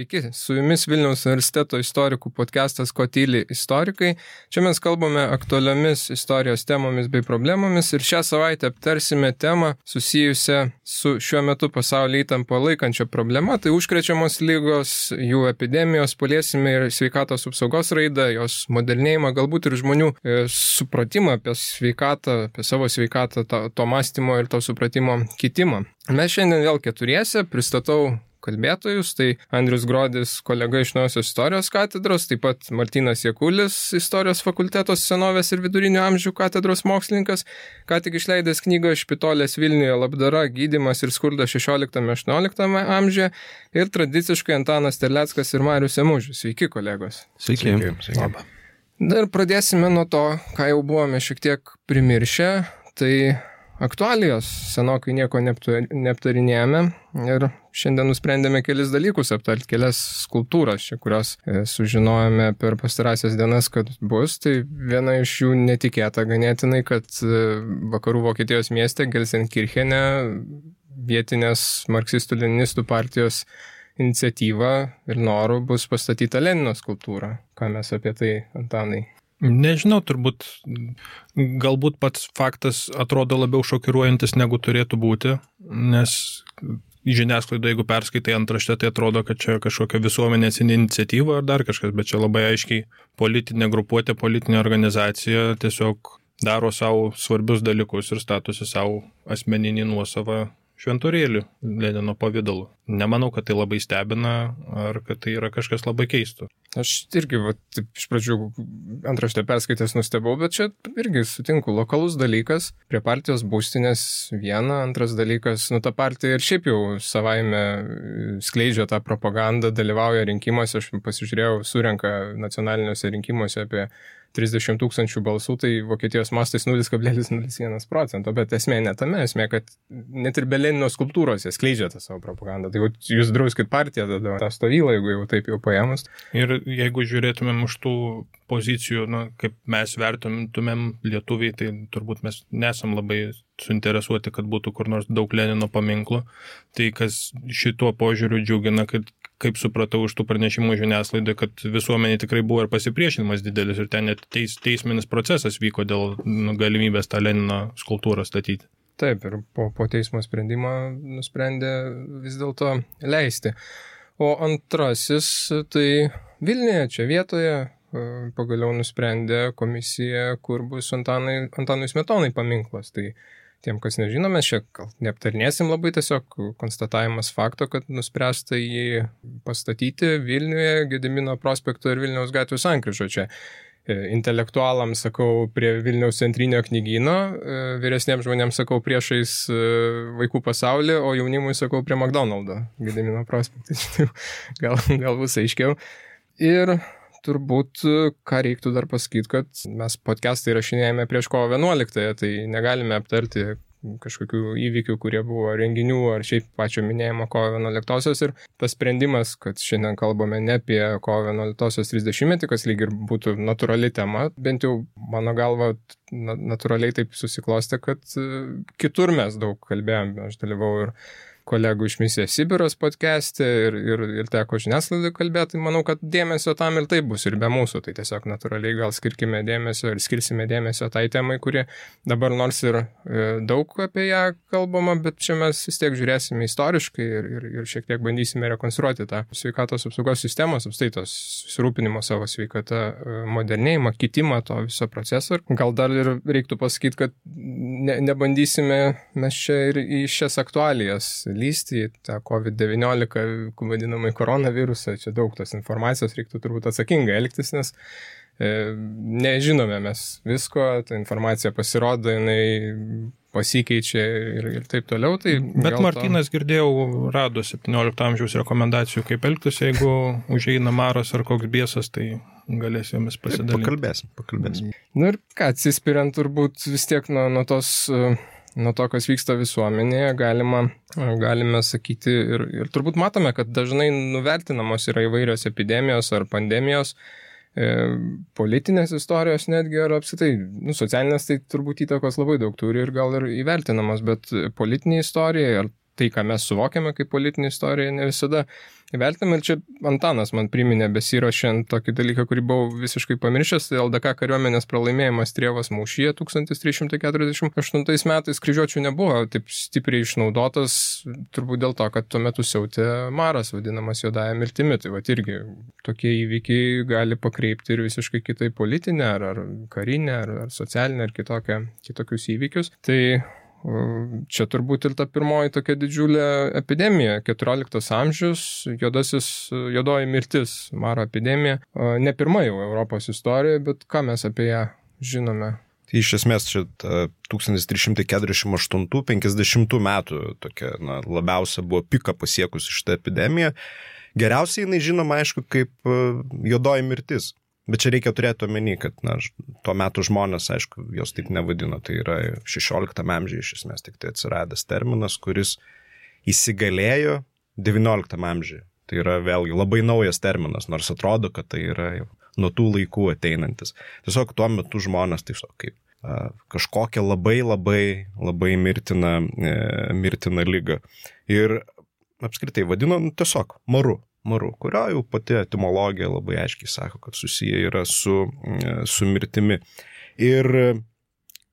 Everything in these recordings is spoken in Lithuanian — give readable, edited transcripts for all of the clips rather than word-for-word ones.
Sveiki, su jumis Vilniaus universiteto istorikų podcastas Ko tyli istorikai. Čia mes kalbame aktualiomis istorijos temomis bei problemomis ir šią savaitę aptarsime temą susijusią su šiuo metu pasaulį įtampą laikančia problema, tai užkrečiamos ligos, jų epidemijos, paliesime ir sveikatos apsaugos raidą, jos modernėjimą, galbūt ir žmonių supratimą apie sveikatą, apie savo sveikatą, to mąstymo ir to supratimo kitimą. Mes šiandien vėl keturiese pristatau kalbėtojus, tai Andrius Grodis, kolega iš Naujosios istorijos katedros, taip pat Martynas Jakulis, istorijos fakulteto senovės ir vidurinio amžių katedros mokslininkas, ką tik išleidęs knygą Špitolės Vilniuje labdara, gydymas ir skurdas 16-18 amžiuje ir tradiciškai Antanas Terleckas ir Marius Emužis. Sveiki, kolegos. Sveiki. Labą. Dar pradėsime nuo to, ką jau buvome šiek tiek primiršę, tai aktualijos, senokai nieko neaptarinėjome ir šiandien nusprendėme kelis dalykus aptarti, kelias skulptūras, kurios sužinojome per pastarąsias dienas, kad bus. Tai viena iš jų netikėta ganėtinai, kad vakarų Vokietijos mieste Gelsenkirchene vietinės marksistų-leninistų partijos iniciatyva ir noru bus pastatyta Lenino skulptūra. Ką mes apie tai, Antanai? Nežinau, galbūt pats faktas atrodo labiau šokiruojantis negu turėtų būti, nes žiniasklaidoje, jeigu perskaitai antraštę, tai atrodo, kad čia kažkokia visuomenės iniciatyva ar dar kažkas, bet čia labai aiškiai politinė grupuotė, politinė organizacija tiesiog daro savo svarbius dalykus ir statosi savo asmeninį nuosavą šventorėlį Lenino pavidalu. Nemanau, kad tai labai stebina ar kad tai yra kažkas labai keisto. Aš irgi iš pradžių antraštę perskaitęs nustebau, bet čia irgi sutinku, lokalus dalykas, prie partijos būstinės viena, antras dalykas, ta partija ir šiaip jau savaime skleidžia tą propagandą, dalyvauja rinkimuose, aš pasižiūrėjau, surenka nacionaliniuose rinkimuose apie 30 000 balsų, tai Vokietijos mastais 0,01%, bet esmė ne tame, esmė, kad net ir be Lenino skulptūros jie skleidžia tą savo propagandą. Tai jūs drauskit partiją tada tą stovylą, jeigu jau taip jau paėmus. Ir jeigu žiūrėtumėm už tų pozicijų, kaip mes vertumėm lietuviai, tai turbūt mes nesam labai suinteresuoti, kad būtų kur nors daug Lenino paminklų. Tai kas šituo požiūriu džiugina, kad kaip supratau iš tų pranešimų žiniasklaidai, kad visuomenė tikrai buvo ir pasipriešinimas didelis ir ten net teisminis procesas vyko dėl galimybės tą Lenino skulptūrą statyti. Taip, ir po teismo sprendimo nusprendė vis dėlto leisti. O antrasis, tai Vilniuje, čia vietoje, pagaliau nusprendė komisija, kur bus Antanui Smetonai paminklas. Tai tiem, kas nežino, mes čia neaptarnėsim labai, tiesiog konstatavimas fakto, kad nuspręsta jį pastatyti Vilniuje, Gedimino prospekto ir Vilniaus gatvių sankryžo. Čia intelektualams sakau prie Vilniaus centrinio knygyno, vyresniems žmonėms sakau priešais vaikų pasaulį, o jaunimui sakau prie McDonald'o Gedimino prospekte. Gal bus aiškiau. Ir turbūt, ką reiktų dar pasakyti, kad mes podcastą įrašinėjame prieš kovo 11, tai negalime aptarti kažkokių įvykių, kurie buvo renginių ar šiaip pačio minėjimo kovo 11. Ir tas sprendimas, kad šiandien kalbame ne apie kovo 11 30-metį, kas lyg ir būtų natūrali tema, bent jau mano galva natūraliai taip susiklostė, kad kitur mes daug kalbėjome. Aš dalyvau ir kolegų iš Misijos Sibiras podcast'e ir teko žiniasklaidai kalbėti, manau, kad dėmesio tam ir taip bus ir be mūsų, tai tiesiog natūraliai gal skirkime dėmesio ir skirsime dėmesio tai temai, kuri dabar nors ir daug apie ją kalbama, bet čia mes vis tiek žiūrėsime istoriškai ir šiek tiek bandysime rekonstruoti tą sveikatos apsaugos sistemos, apstaitos susirūpinimo savo sveikata, modernėjimą, kitimą to viso proceso. Gal dar ir reiktų pasakyti, kad nebandysime mes čia ir į šias aktualijas lysti į tą COVID-19 vadinamai koronavirusą, čia daug tos informacijos, reiktų turbūt atsakingai elgtis, nes nežinome mes visko, ta informacija pasirodo, jinai pasikeičia ir taip toliau. Tai bet Martynas, girdėjau, rado 17 amžiaus rekomendacijų, kaip elgtis, jeigu užeina maras ar koks biesas, tai galės jomis pasidalinti. Pakalbėsim. Ir ką, atsispiriant turbūt vis tiek nuo to, kas vyksta visuomenėje, galime sakyti ir turbūt matome, kad dažnai nuvertinamos yra įvairios epidemijos ar pandemijos, politinės istorijos netgi, ar apskritai, socialinės tai turbūt įtakos labai daug turi ir gal ir įvertinamos, bet politinė istorija, ar tai, ką mes suvokiame kaip politinė istorija, ne visada įvertiname. Ir čia Antanas man priminė besiruošiant tokį dalyką, kurį buvau visiškai pamiršęs, tai LDK kariuomenės pralaimėjimas Trievos mūšyje 1348 metais kryžiuočių nebuvo taip stipriai išnaudotas, turbūt dėl to, kad tuo metu siautė maras, vadinamas juodąja mirtimi. Tai vat irgi tokie įvykiai gali pakreipti ir visiškai kitai politinę, ar karinę, ar socialinę, ar kitokius įvykius. Tai čia turbūt ir ta pirmoji tokia didžiulė epidemija, 14 amžius, juodoji mirtis, maro epidemija. Ne pirma jau Europos istorijoje, bet ką mes apie ją žinome? Tai iš esmės čia 1348-50 metų tokia, labiausia buvo pika pasiekusi šitą epidemiją. Geriausiai jinai žinoma, aišku, kaip juodoji mirtis. Bet čia reikia turėti omeny, kad tuo metu žmonės, aišku, jos taip nevadino. Tai yra 16 amžiuje iš esmės tik tai atsiradęs terminas, kuris įsigalėjo 19 amžiuje. Tai yra vėlgi labai naujas terminas, nors atrodo, kad tai yra jau nuo tų laikų ateinantis. Tiesiog tuo metu žmonės tiesiog kaip kažkokią labai mirtiną ligą. Ir apskritai vadino tiesiog maru, kurio jau pati etimologija labai aiškiai sako, kad susiję yra su mirtimi. Ir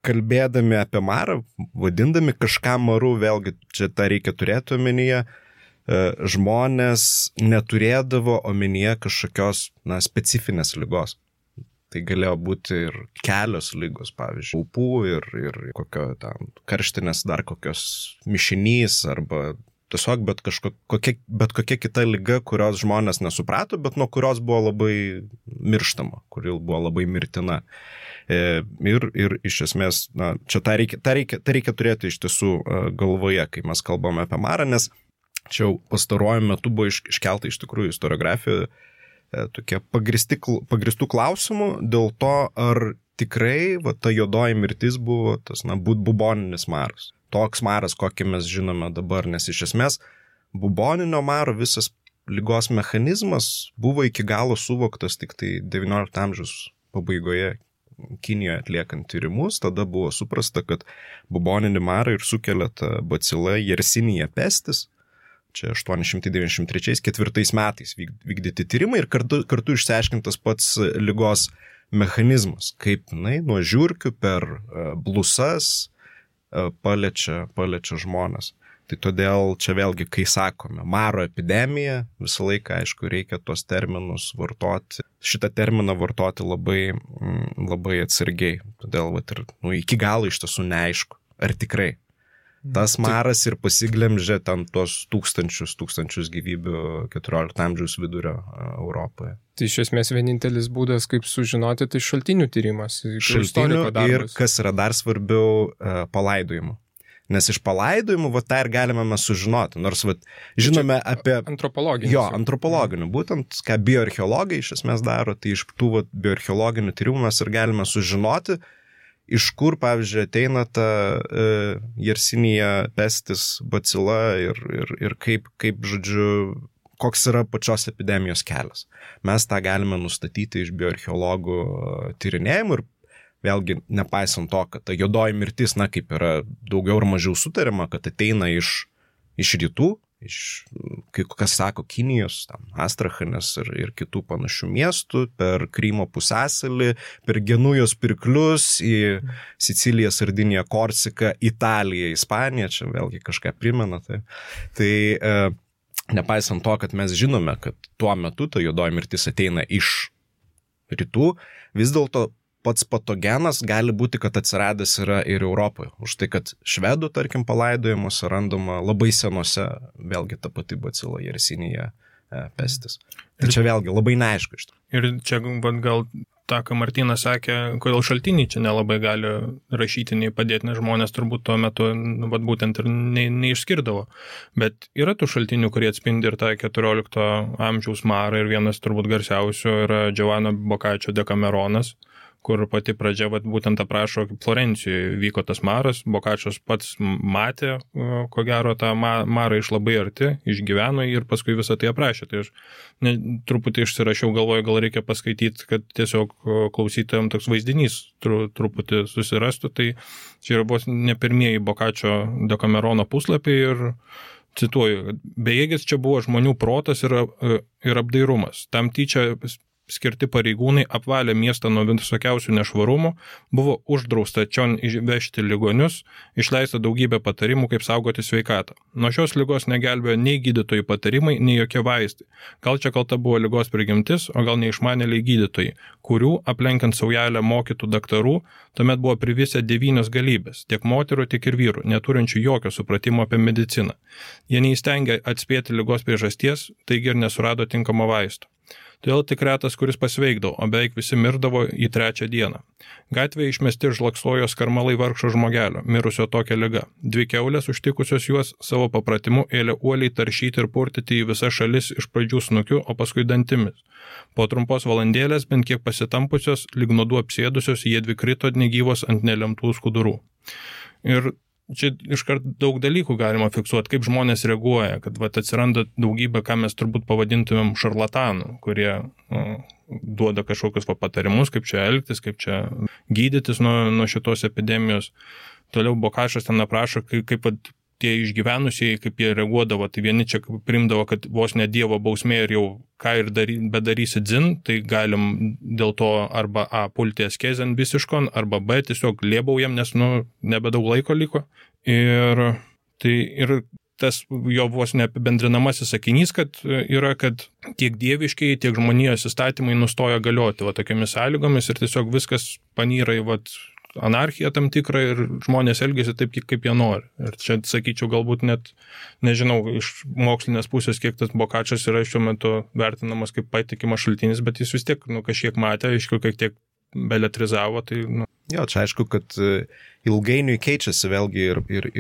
kalbėdami apie marą, vadindami kažką maru, vėlgi čia tą reikia turėti omenyje, žmonės neturėdavo omenyje kažkokios specifinės ligos. Tai galėjo būti ir kelios ligos, pavyzdžiui, ūpų ir kokio ten karštinės dar kokios mišinys arba tiesiog bet kokia kita liga, kurios žmonės nesuprato, bet nuo kurios buvo labai mirštama, kuri buvo labai mirtina. Ir iš esmės, čia tą reikia turėti iš tiesų galvoje, kai mes kalbame apie marą, nes čia jau pastaruoju metu buvo iškelta iš tikrųjų istoriografijoje tokie pagristų klausimų dėl to, ar tikrai ta juodoji mirtis buvo tas buboninis maras. Toks maras, kokį mes žinome dabar, nes iš esmės buboninio maro visas ligos mechanizmas buvo iki galo suvoktas tik tai 19 amžiaus pabaigoje Kinijoje atliekant tyrimus. Tada buvo suprasta, kad buboninį marą ir sukelia ta bacila Yersinia pestis. Čia 893-4 metais vykdyti tyrimai ir kartu išsiaiškintas pats ligos mechanizmas, kaip nuo žiurkių per blusas paliečia žmonės. Tai todėl čia vėlgi, kai sakome maro epidemija, visą laiką, aišku, reikia tos terminus vartoti. Šitą terminą vartoti labai atsargiai. Todėl ir iki galo iš tiesų neaišku, ar tikrai tas maras ir pasiglemžė ten tos tūkstančius gyvybių 14 amžiaus vidurio Europoje. Tai iš esmės vienintelis būdas, kaip sužinoti, tai šaltinių tyrimas. Šaltinių ir, kas yra dar svarbiau, palaidojimų. Nes iš palaidojimų, tą ir galime mes sužinoti. Nors, žinome apie... Antropologinių. Jo, antropologinių. Būtent, ką bioarcheologai iš esmės daro, tai iš tų bioarcheologinių tyrimų mes ir galime sužinoti, iš kur, pavyzdžiui, ateina ta Yersinia pestis bacila ir kaip, žodžiu, koks yra pačios epidemijos kelias. Mes tą galime nustatyti iš bioarcheologų tyrinėjimų ir vėlgi, nepaisant to, kad ta juodoji mirtis, kaip yra daugiau ar mažiau sutariama, kad ateina iš rytų, kas sako, Kinijos, Astrachanės ir kitų panašių miestų, per Krymo pusiasalį, per Genujos pirklius į Siciliją, Sardiniją, Korsiką, Italiją, Ispaniją, čia vėlgi kažką primena. Tai nepaisant to, kad mes žinome, kad tuo metu ta juodoji mirtis ateina iš rytų, vis dėlto pats patogenas gali būti, kad atsiradęs yra ir Europoje. Už tai, kad švedų, tarkim, palaidojimuose randama labai senose, vėlgi ta pati bacila Yersinia pestis. Tai čia vėlgi labai neaišku iš to. Ir čia gal tą, ką Martynas sakė, kodėl šaltiniai čia nelabai gali rašytiniai padėti, nes žmonės turbūt tuo metu būtent ir neišskirdavo. Bet yra tų šaltinių, kurie atspindi ir tą 14 amžiaus marą, ir vienas turbūt garsiausių yra Giovanni Boccaccio Decameronas, kur pati pradžia būtent aprašo, kaip Florencijoje vyko tas maras. Boccaccios pats matė, ko gero, tą marą iš labai arti, išgyveno ir paskui visą tai aprašė. Tai aš truputį išsirašiau, galvoju, gal reikia paskaityti, kad tiesiog klausytojams toks vaizdinys truputį susirastų. Tai čia yra buvo ne pirmieji Boccaccio Decamerono puslapiai ir Cituoju, bejėgis čia buvo žmonių protas ir apdairumas. Tam tyčia skirti pareigūnai apvalė miestą nuo visokiausių nešvarumų, buvo uždrausta čion išvežti ligonius, išleista daugybė patarimų, kaip saugoti sveikatą. Nuo šios ligos negelbėjo nei gydytojų patarimai, nei jokie vaistai. Gal čia kalta buvo ligos prigimtis, o gal neišmanėliai gydytojai, kurių, aplenkiant saujelę mokytų daktarų, tuomet buvo privisę 9 galybės, tiek moterų, tiek ir vyrų, neturinčių jokio supratimo apie mediciną. Jie neįstengė atspėti ligos priežasties, taigi ir nesurado tinkamo vaisto. Todėl tik retas, kuris pasveikdavo, o beveik visi mirdavo į 3 dieną. Gatvėje išmesti žlaksojo skarmalai vargšo žmogelio, mirusio tokia liga. 2 kiaulės užtikusios juos savo papratimu ėlė uoliai taršyti ir purtyti į visas šalis iš pradžių snukiu, o paskui dantimis. Po trumpos valandėlės, bent kiek pasitampusios, lyg nuodų apsėdusios, jie dvi krito negyvos ant nelemtų skudurų. Ir čia iškart daug dalykų galima fiksuoti, kaip žmonės reaguoja, kad atsiranda daugybė, ką mes turbūt pavadintumėm šarlatanų, kurie duoda kažkokius patarimus, kaip čia elgtis, kaip čia gydytis nuo šitos epidemijos. Toliau Bokašas ten aprašo, kaip tie išgyvenusieji, kaip jie reaguodavo, tai vieni čia primdavo, kad vos ne Dievo bausmė ir jau ką ir bedarysi dzin, tai galim dėl to arba A pulti askezėn visiškon, arba B tiesiog lėbaujam, nes nebedaug laiko liko. Ir tas jo vos neapibendrinamasis sakinys, kad tiek dieviškiai, tiek žmonijos įstatymai nustoja galioti tokiamis sąlygomis ir tiesiog viskas panyra į anarchija tam tikra ir žmonės elgiasi taip, kaip jie nori. Ir čia, sakyčiau, galbūt net, nežinau, iš mokslinės pusės, kiek tas Bokačas yra šiuo metu vertinamas kaip patikimas šaltinis, bet jis vis tiek, kažkiek matė, aišku, kiek tiek beletrizavo, tai, Jo, čia aišku, kad ilgainiui keičiasi vėlgi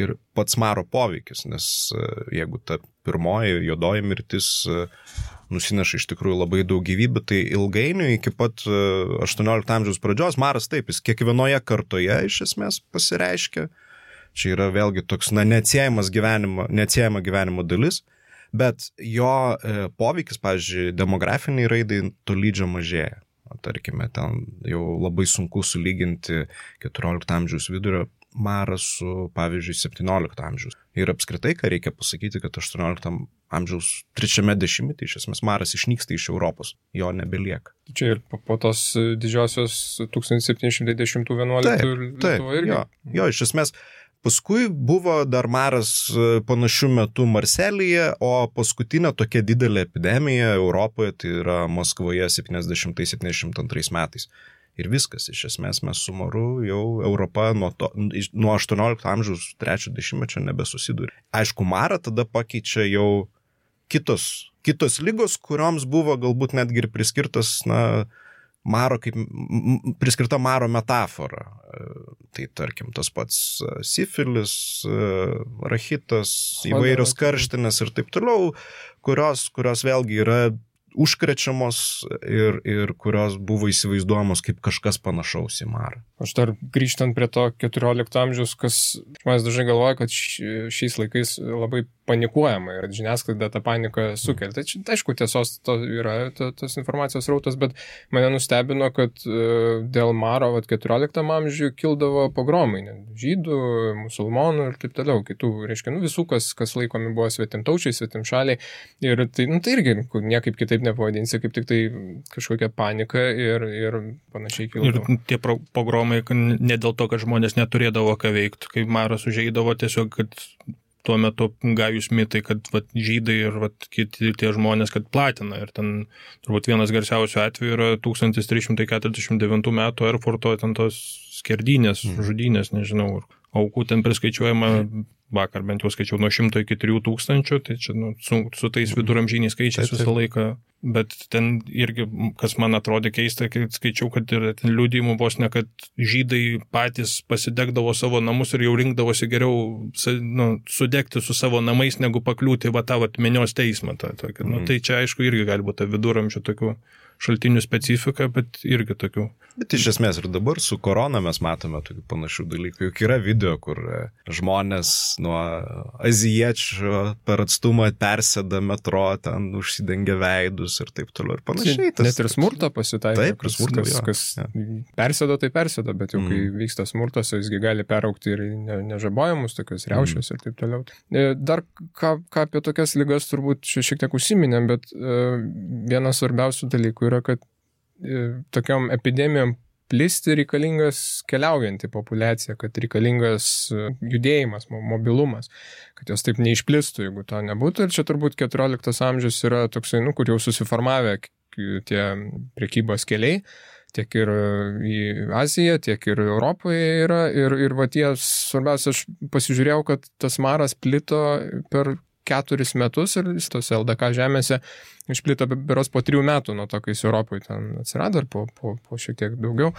ir pats maro poveikis, nes jeigu ta pirmoji juodoji mirtis nusineša iš tikrųjų labai daug gyvybių, tai ilgainiui iki pat 18 amžiaus pradžios maras taip, jis kiekvienoje kartoje iš esmės pasireiškia. Čia yra vėlgi toks, neatsiejama gyvenimo dalis, bet jo poveikis, pavyzdžiui, demografiniai raidai tolydžio mažėja. Tarkime, ten jau labai sunku sulyginti 14 amžiaus vidurio marą su, pavyzdžiui, 17 amžiaus. Ir apskritai, ką reikia pasakyti, kad 18 amžiaus 3 dešimtmetyje iš esmės maras išnyksta iš Europos, jo nebelieka. Čia ir po tos didžiosios 1710-11 Lietuva irgi. Jo, iš esmės, paskui buvo dar maras panašių metų Marselyje, o paskutinė tokia didelė epidemija Europoje, tai yra Maskvoje 70-72 metais. Ir viskas, iš esmės mes su maru jau Europa nuo 18 amžiaus 3 dešimtmečio nebesusidūrė. Aišku, marą tada pakeičia jau kitos ligos, kurioms buvo galbūt netgi ir priskirtas, priskirta maro metafora. Tai tarkim tas pats sifilis, rachitas, įvairios karštinės ir taip toliau, kurios vėlgi yra užkrečiamos ir kurios buvo įsivaizduojamos kaip kažkas panašaus į marą. Aš dar grįžtant prie to 14 amžiaus, kas žmonės dažnai galvoja, kad šiais laikais labai panikuojama ir žiniasklaida tą paniką sukelia. Tai aišku, tiesos yra tas informacijos rautas, bet mane nustebino, kad dėl maro 14 amžiuje kildavo pogromai, žydų, musulmonų ir taip toliau, kitų, reiškia, visų, kas laikomi buvo svetimtaučiai, svetimšaliai. Ir tai irgi niekaip kitaip nepavadinsi, kaip tik tai kažkokia panika ir panašiai kildavo. Ir tie pogromai ne dėl to, kad žmonės neturėdavo ką veikti, kai maras užeidavo tiesiog, kad tuo metu gajus mitai, kad žydai ir kiti tie žmonės, kad platina. Ir ten turbūt vienas garsiausių atvejų yra 1349 metų Erfurto ten tos skerdynės, žudynės, nežinau, aukų ten priskaičiuojama, vakar bent jau skaičiau nuo 100 iki 3000, tai čia su tais viduramžiniais skaičiais visą laiką. Bet ten irgi, kas man atrodė keista, kai skaičiau, kad ir ten liudijimų vos ne, kad žydai patys pasidegdavo savo namus ir jau rinkdavosi geriau sudegti su savo namais, negu pakliūti tą minios teismą. Tai čia aišku irgi gali būti viduramžių tokių šaltinių specifika, bet irgi tokių. Bet iš esmės ir dabar su korona mes matome tokių panašių dalykų. Juk yra video, kur žmonės nuo azijiečių per atstumą persėda metro, ten užsidengia veidus ir taip toliau ir panašiai. Net ir smurto pasitaiko. Taip, kas persėdo, tai persėdo, bet jau kai vyksta smurtas, jisgi gali peraukti ir nežabojamus tokius riaušius ir taip toliau. Dar ką apie tokias ligas turbūt šiek tiek užsiminėm, bet vienas svarbiausių dalykų yra, kad tokiom epidemijom plisti reikalingas keliaujanti populiacija, kad reikalingas judėjimas, mobilumas, kad jos taip neišplistų, jeigu to nebūtų. Ir čia turbūt 14 amžius yra toksai, kur jau susiformavę tie prekybos keliai, tiek ir į Aziją, tiek ir Europoje yra. Ir va tie, svarbiausia, aš pasižiūrėjau, kad tas maras plito per 4 metus ir tose LDK žemėse išplito berods po 3 metų nuo to, kai jis Europoje ten atsirado, ir po šiek tiek daugiau.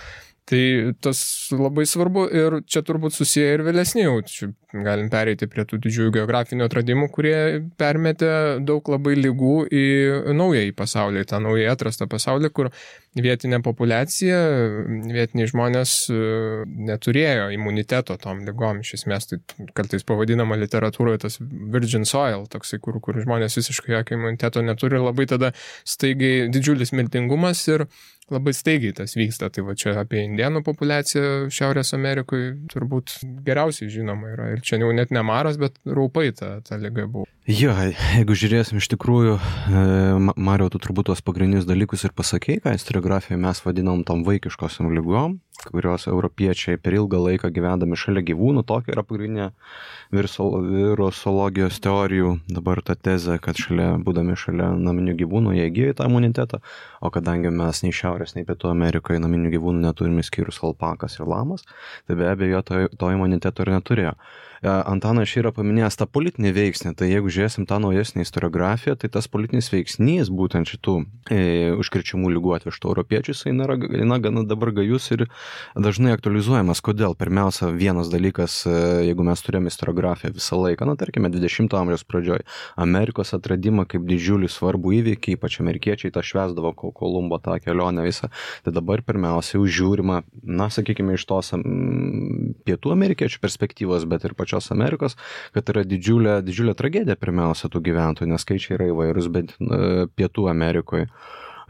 Tai tas labai svarbu ir čia turbūt susiję ir vėlesni jau. Čia galim pereiti prie tų didžiųjų geografinių atradimų, kurie permetė daug labai ligų į naująjį pasaulį, tą naujai atrastą pasaulį, kur vietinė populiacija, vietiniai žmonės neturėjo imuniteto tom ligom. Iš esmės, tai kartais pavadinama literatūroje tas virgin soil, toksai, kur žmonės visiškai jokio imuniteto neturi, labai tada staigiai didžiulis mirtingumas ir labai staigiai tas vyksta. Tai va čia apie indėnų populiaciją Šiaurės Amerikoje turbūt geriausiai žinoma yra. Ir čia jau net ne maras, bet raupai ta liga buvo. Jo, jeigu žiūrėsim iš tikrųjų, Mariau, tu turbūt tuos pagrindinius dalykus ir pasakei, ką istoriografijoje mes vadinam tom vaikiškosiam ligom, kurios europiečiai per ilgą laiką gyvendami šalia gyvūnų, tokia yra pagrindinė virusologijos teorijų dabar ta tezė, kad būdami šalia naminių gyvūnų jie įgyja tą imunitetą, o kadangi mes nei Šiaurės, nei Pietų Amerikoje naminių gyvūnų neturime skyrus alpakas ir lamas, tai be abejo to imuniteto ir neturėjo. Antanas yra paminėjęs tą politinį veiksnį, tai jeigu žiūrėsim tą naujesnį istoriografiją, tai tas politinis veiksnys būtent šitų užkrečiamų ligų atvežtų europiečių, jis yra gana dabar gajus ir dažnai aktualizuojamas. Kodėl? Pirmiausia, vienas dalykas, jeigu mes turėjome istoriografiją visą laiką, tarkime 20 amžiaus pradžioj, Amerikos atradimą kaip didžiulį svarbų įvykį, ypač amerikiečiai tą švęsdavo Kolumbo tą kelionę visą, tai dabar pirmiausia žiūrima, sakykime, iš tos pietų amerikiečių perspektyvos, bet ir pačios Amerikos, kad yra didžiulė tragedija pirmiausia tų gyventojų, nes skaičiai yra įvairūs, bet Pietų Amerikoje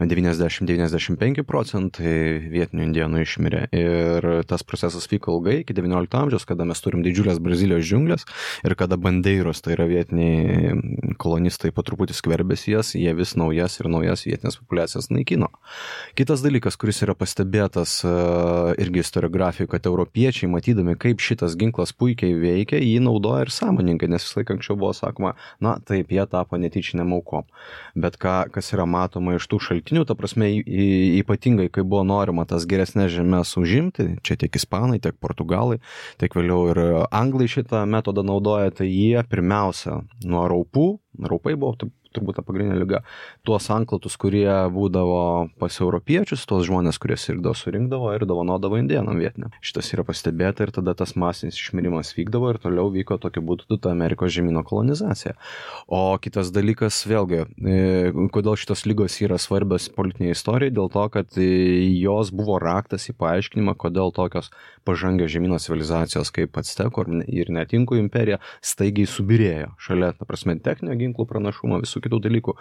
90-95% vietinių indėnų išmirė. Ir tas procesas vyko ilgai, iki 19 amžiaus, kada mes turim didžiulės Brazilijos džiunglės ir kada bandeiros, tai yra vietiniai kolonistai, po truputį skverbėsi jas, jie vis naujas vietinės populiacijas naikino. Kitas dalykas, kuris yra pastebėtas irgi istoriografijoje, kad europiečiai, matydami, kaip šitas ginklas puikiai veikia, jį naudoja ir sąmoningai, nes vis laik anksčiau buvo sakoma, taip, jie tapo netyčiniam aukom. Bet kas yra matoma iš tų šaltinių, ta prasme, ypatingai, kai buvo norima tas geresnės žemės užimti, čia tiek ispanai, tiek portugalai, tiek vėliau ir anglai šitą metodą naudoja, tai jie pirmiausia nuo raupai buvo turbūt ta pagrindinė liga, tuos anklatus, kurie būdavo pas europiečius, tuos žmonės, kurie sirgdavo, surinkdavo ir dovanodavo indėnam vietiniam. Šitas yra pastebėta ir tada tas masinis išmirimas vykdavo ir toliau vyko tokiu būdu ta Amerikos žemyno kolonizacija. O kitas dalykas, vėlgi, kodėl šitos ligos yra svarbios politinėje istorijoje, dėl to, kad jos buvo raktas į paaiškinimą, kodėl tokios pažangios žemyno civilizacijos kaip Actekų ir net Inkų imperija staigiai subirėjo šalia, ta prasme, techninio ginklų pranašumo, visų kitų dalykų,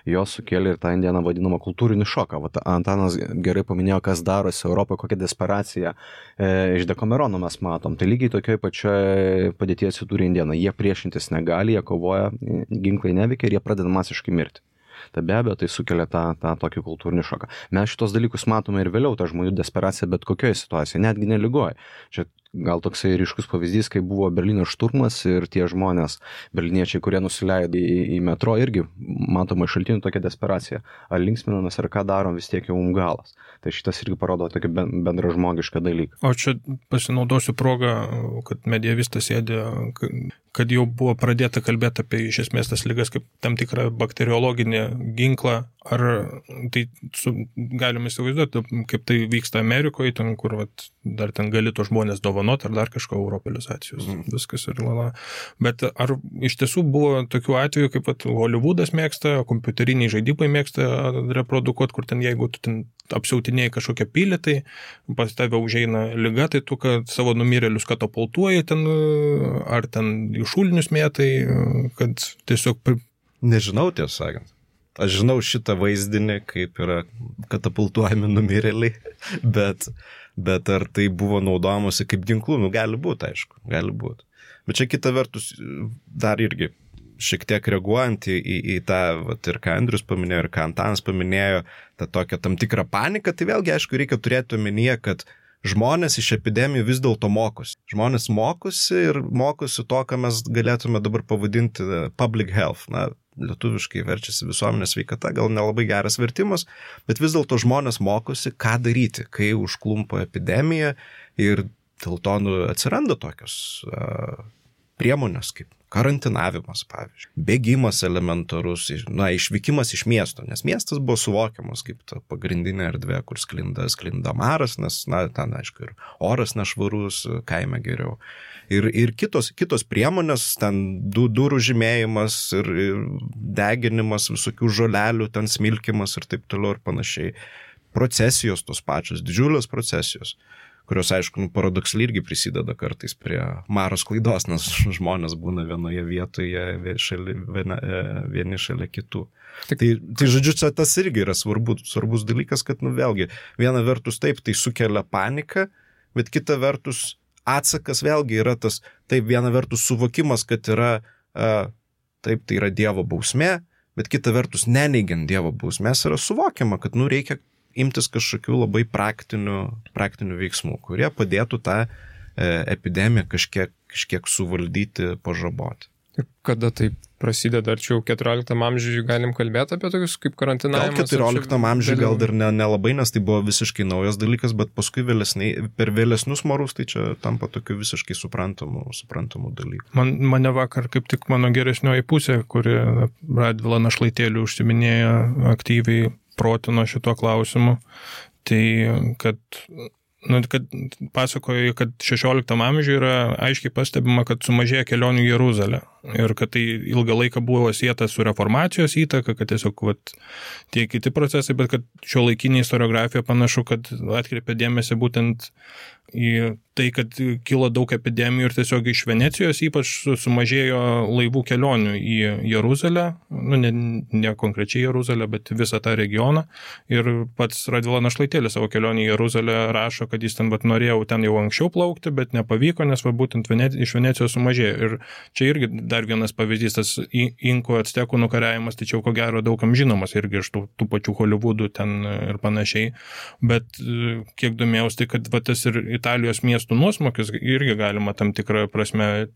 jos sukėlė ir tą indieną vadinamą kultūrinį šoką. Antanas gerai paminėjo, kas darosi Europoje, kokią desperaciją iš Dekamerono mes matom. Tai lygiai tokioj pačioj padėtyje atsidūrė indėnai. Jie priešintis negali, jie kovoja, ginklai neveikia ir jie pradeda masiškai mirti. Tai be abejo, tai sukelia tą tokį kultūrinį šoką. Mes šitos dalykus matome ir vėliau, tą žmonių desperaciją, bet kokioje situacijoje, netgi neligoje. Čia gal toksai ryškus pavyzdys, kai buvo Berlyno šturmas ir tie žmonės, berliniečiai, kurie nusileido į metro, irgi matoma iš šaltinių tokia desperacija. Ar linksminamės, ar ką darom, vis tiek jau galas. Tai šitas irgi parodo tokį bendražmogišką dalyką. O čia pasinaudosiu progą, kad medievistas sėdė, kad jau buvo pradėta kalbėti apie iš esmės tas ligas kaip tam tikrą bakteriologinį ginklą. Ar tai galime įsivaizduoti, kaip tai vyksta Amerikoje, ten, kur dar ten gali to žmonės dovanoti dovanot ar dar kažko europeizacijos. Viskas ir lala. Bet ar iš tiesų buvo tokių atvejų, kaip Hollywoodas mėgsta, kompiuteriniai žaidimai mėgsta reprodukuoti, kur ten jeigu tu ten apsiautinėjai kažkokią pilį, tai pas tave užeina liga, tai tu kad savo numirėlius katapultuoji ten, ar ten į šulinius mėtai, kad tiesiog... Nežinau, tiesą sakant. Aš žinau šitą vaizdinį, kaip yra katapultuojami numirėliai, bet ar tai buvo naudojamasi kaip ginklų, gali būti, aišku, gali būti. Bet čia kita vertus, dar irgi šiek tiek reaguojant į tą, ir ką Andrius paminėjo, ir ką Antanas paminėjo, tą tokią tam tikrą paniką, tai vėlgi, aišku, reikia turėti omenyje, kad žmonės iš epidemijų vis dėlto mokosi. Žmonės mokosi ir mokosi to, ką mes galėtume dabar pavadinti public health. Na, lietuviškai verčiasi visuomenės sveikata, gal nelabai geras vertimas, bet vis dėlto žmonės mokosi, ką daryti, kai užklumpa epidemija ir dėl to atsiranda tokios priemonės kaip karantinavimas, pavyzdžiui, bėgimas elementarus, išvykimas iš miesto, nes miestas buvo suvokiamas kaip ta pagrindinė erdvė, kur sklinda maras, nes, ten, aišku, ir oras nešvarus, kaime geriau. Ir kitos priemonės, ten durų žymėjimas ir deginimas, visokių žolelių, ten smilkimas ir taip toliau ir panašiai. Procesijos tos pačios, didžiulės procesijos, kurios, aišku, paradoksaliai irgi prisideda kartais prie maro sklaidos, nes žmonės būna vienoje vietoje vieni šalia kitų. Tai žodžiu, čia tas irgi yra svarbus dalykas, kad, vėlgi, viena vertus taip, tai sukelia paniką, bet kita vertus atsakas vėlgi yra tas, taip, viena vertus suvokimas, kad yra, taip, tai yra Dievo bausmė, bet kita vertus neneigiant Dievo bausmės yra suvokiama, kad, reikia imtis kažkokių labai praktinių veiksmų, kurie padėtų tą epidemiją kažkiek suvaldyti, pažaboti. Ir kada tai prasideda, ar čia jau 14 amžiuje galim kalbėti apie tokius kaip karantinavimas? Gal 14 amžiuje gal dar nelabai, nes tai buvo visiškai naujas dalykas, bet paskui per vėlesnius marus tai čia tampa tokiu visiškai suprantamų dalykų. Mane vakar kaip tik mano geresnioji pusė, kuri Radvila Našlaitėlių užsiminėjo aktyviai protino šito klausimu, tai kad pasakoja, kad 16 amžiuje yra aiškiai pastebima, kad sumažėja kelionių į Jeruzalę ir kad tai ilgą laiką buvo sieta su reformacijos įtaka, kad tiesiog tie kiti procesai, bet kad šiuolaikinė istoriografija panašu, kad atkreipia dėmesį būtent į tai, kad kilo daug epidemijų ir tiesiog iš Venecijos ypač sumažėjo laivų kelionių į Jeruzalę, ne konkrečiai Jeruzalę, bet visą tą regioną. Ir pats Radvila Našlaitėlis savo kelionį į Jeruzalę rašo, kad jis ten norėjo ten jau anksčiau plaukti, bet nepavyko, nes būtent iš Venecijos sumažėjo. Ir čia irgi dar vienas pavyzdys, tas inkų actekų nukariavimas, tačiau ko gero daugam žinomas irgi iš tų pačių Hollywoodų ten ir panašiai. Bet kiek domėjausi, tai kad tas ir Italijos miestų nuosmukis irgi galima tam tikrą prasme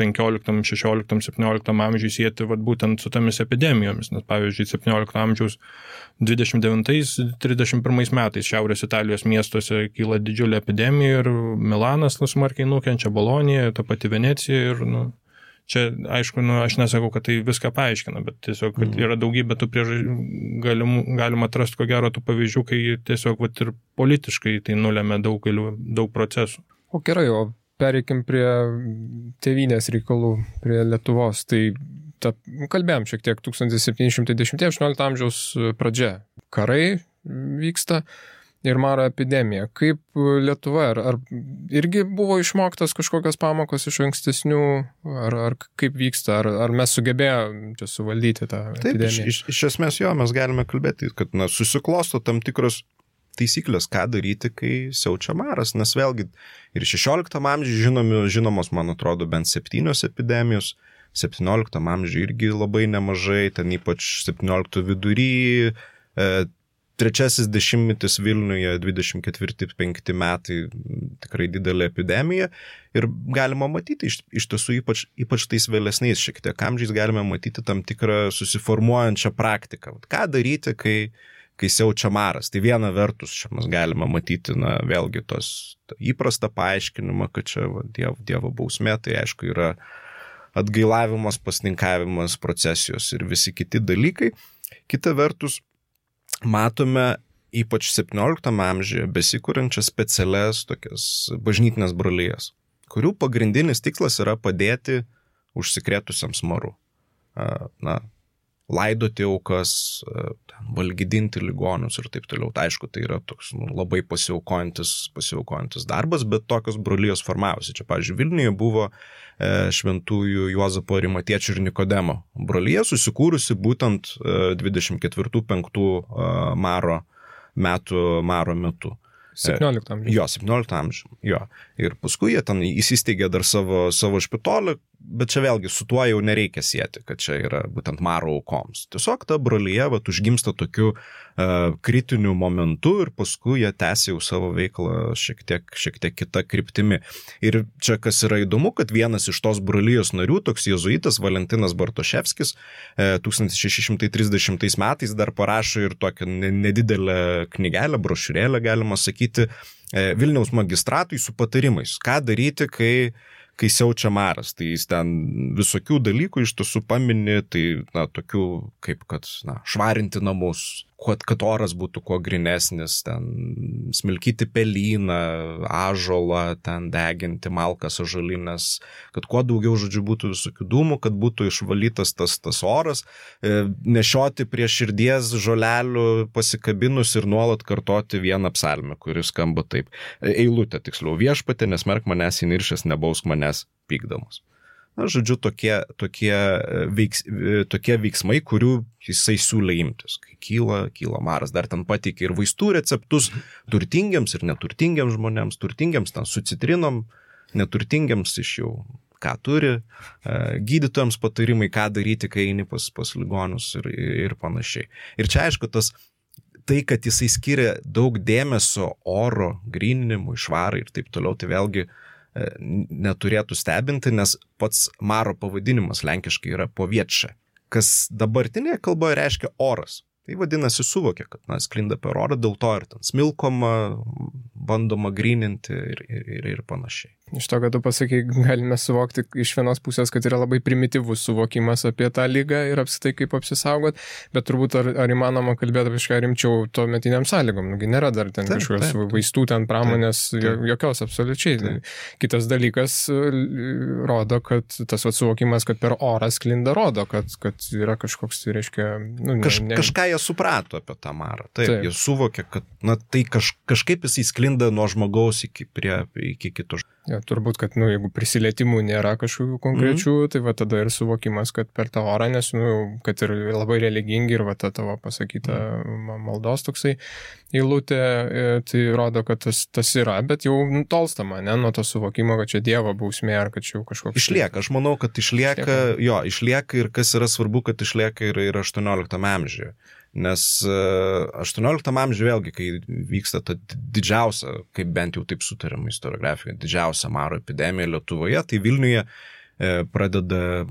15, 16, 17 amžiui sieti būtent su tomis epidemijomis, nes pavyzdžiui 17 amžiaus 29-31 metais Šiaurės Italijos miestuose kyla didžiulė epidemija ir Milanas smarkiai nukenčia, Bolonija, ta pati Venecija ir čia, aišku, aš nesakau, kad tai viską paaiškina, bet tiesiog kad yra daugybė tų galima atrasti ko gero tų pavyzdžių, kai tiesiog ir politiškai tai nulėmė daug procesų. O gerai, o pereikim prie tėvynės reikalų, prie Lietuvos. Tai kalbėjom šiek tiek 1710-18 amžiaus pradžia. Karai vyksta ir maro epidemija. Kaip Lietuva, ar irgi buvo išmoktas kažkokios pamokos iš ankstesnių, ar kaip vyksta, ar mes sugebėjome čia suvaldyti tą epidemiją? Taip, iš esmės mes galime kalbėti, kad susiklosto tam tikros taisyklės, ką daryti, kai siaučia maras, nes vėlgi ir 16 amžiuje žinomos, man atrodo, bent 7 epidemijos, 17 amžiuje irgi labai nemažai, ten ypač 17 vidury, 3 dešimtmetis Vilniuje, 24-25 metai, tikrai didelė epidemija ir galima matyti iš tiesų ypač tais vėlesniais šiek tiek amžiais galime matyti tam tikrą susiformuojančią praktiką. Ką daryti, kai siaučia maras. Tai viena vertus čia mes galime matyti, vėlgi įprastą paaiškinimą, kad čia Dievo bausmė, tai aišku yra atgailavimas, pasninkavimas, procesijos ir visi kiti dalykai. Kita vertus, matome ypač 17 amžiuje, besikūrenčias specialias tokias bažnytinės brolijas, kurių pagrindinis tikslas yra padėti užsikrėtusiems maru. Laidoti aukas, valgydinti ligonius ir taip toliau. Tai aišku, tai yra toks labai pasiaukojantis darbas, bet tokios brolijos formavosi. Čia, pavyzdžiui, Vilniuje buvo šventųjų Juozapo Arimatiečių ir Nikodemo brolija, susikūrusi būtent 24-5 maro metu. 17 amžiuje. Jo, 17 amžiuje. Jo. Ir paskui jie ten įsisteigė dar savo špitolį, bet čia vėlgi su tuo jau nereikia sieti, kad čia yra būtent maro aukoms. Tiesiog ta brolyje užgimsta tokiu kritiniu momentu ir paskui jie tęsia jau savo veiklą šiek tiek kita kryptimi. Ir čia kas yra įdomu, kad vienas iš tos brolijos narių, toks jėzuitas Valentinas Bartoševskis, 1630 metais dar parašo ir tokią nedidelę knygelę, brošiūrėlę, galima sakyti, Vilniaus magistratui su patarimais, ką daryti, kai siaučia maras. Tai jis ten visokių dalykų iš tiesų pamini, tai tokių kaip kad švarinti namus, kad oras būtų kuo grinesnis, ten smilkyti pelyną, ąžuolą, ten deginti malkas ąžuolines, kad kuo daugiau, žodžiu, būtų visokių dūmų, kad būtų išvalytas tas oras, nešioti prie širdies žolelių pasikabinus ir nuolat kartoti vieną psalmę, kuris skamba taip. Eilutė, tiksliau, viešpatie, nesmerk manęs įniršęs, nebausk manęs pykdamas. Žodžiu, tokie veiksmai, kurių jisai siūlė imtis. Kai kyla maras, dar ten pateikė ir vaistų receptus turtingiams ir neturtingiams žmonėms, turtingiams ten su citrinom, neturtingiams iš jau ką turi, gydytojams patarimai, ką daryti, kai eini pas ligonius ir panašiai. Ir čia aišku, tai, kad jisai skiria daug dėmesio oro gryninimui, švarai ir taip toliau, tai vėlgi neturėtų stebinti, nes pats maro pavadinimas lenkiškai yra poviečia, kas dabartinėje kalboje reiškia oras. Tai vadinasi suvokia, kad sklinda per orą, dėl to ir ten smilkoma, bandoma gryninti ir panašiai. Iš to, kad tu pasakai, galime suvokti iš vienos pusės, kad yra labai primityvus suvokimas apie tą lygą ir apskritai kaip apsisaugot, bet turbūt ar įmanoma kalbėti apie kažką rimčiau to metiniam sąlygom. Nugi nėra dar ten kažkokios vaistų, ten pramonės, jokios absoliučiai. Taip. Kitas dalykas rodo, kad tas suvokimas, kad per orą sklinda, rodo, kad yra kažkoks, tai reiškia... Kažką jie suprato apie tą marą. Taip. Jie suvokė, kad tai kažkaip jisai sklinda nuo žmogaus iki kito. Ja, turbūt, kad jeigu prisilietimų nėra kažkokių konkrečių, tai va tada ir suvokimas, kad per tą orą, nes kad ir labai religingi ir va ta tavo pasakyta maldos toksai eilutė, tai rodo, kad tas yra, bet jau tolstama, nuo to suvokimo, kad čia Dievo bausmė ar kad čia jau kažkoks... Išlieka, aš manau, kad išlieka ir kas yra svarbu, kad išlieka ir 18 amžiuje. Nes 18 amžiuje vėlgi, kai vyksta ta didžiausia, kaip bent jau taip sutariama istoriografijoje, didžiausia maro epidemija Lietuvoje, tai Vilniuje pradeda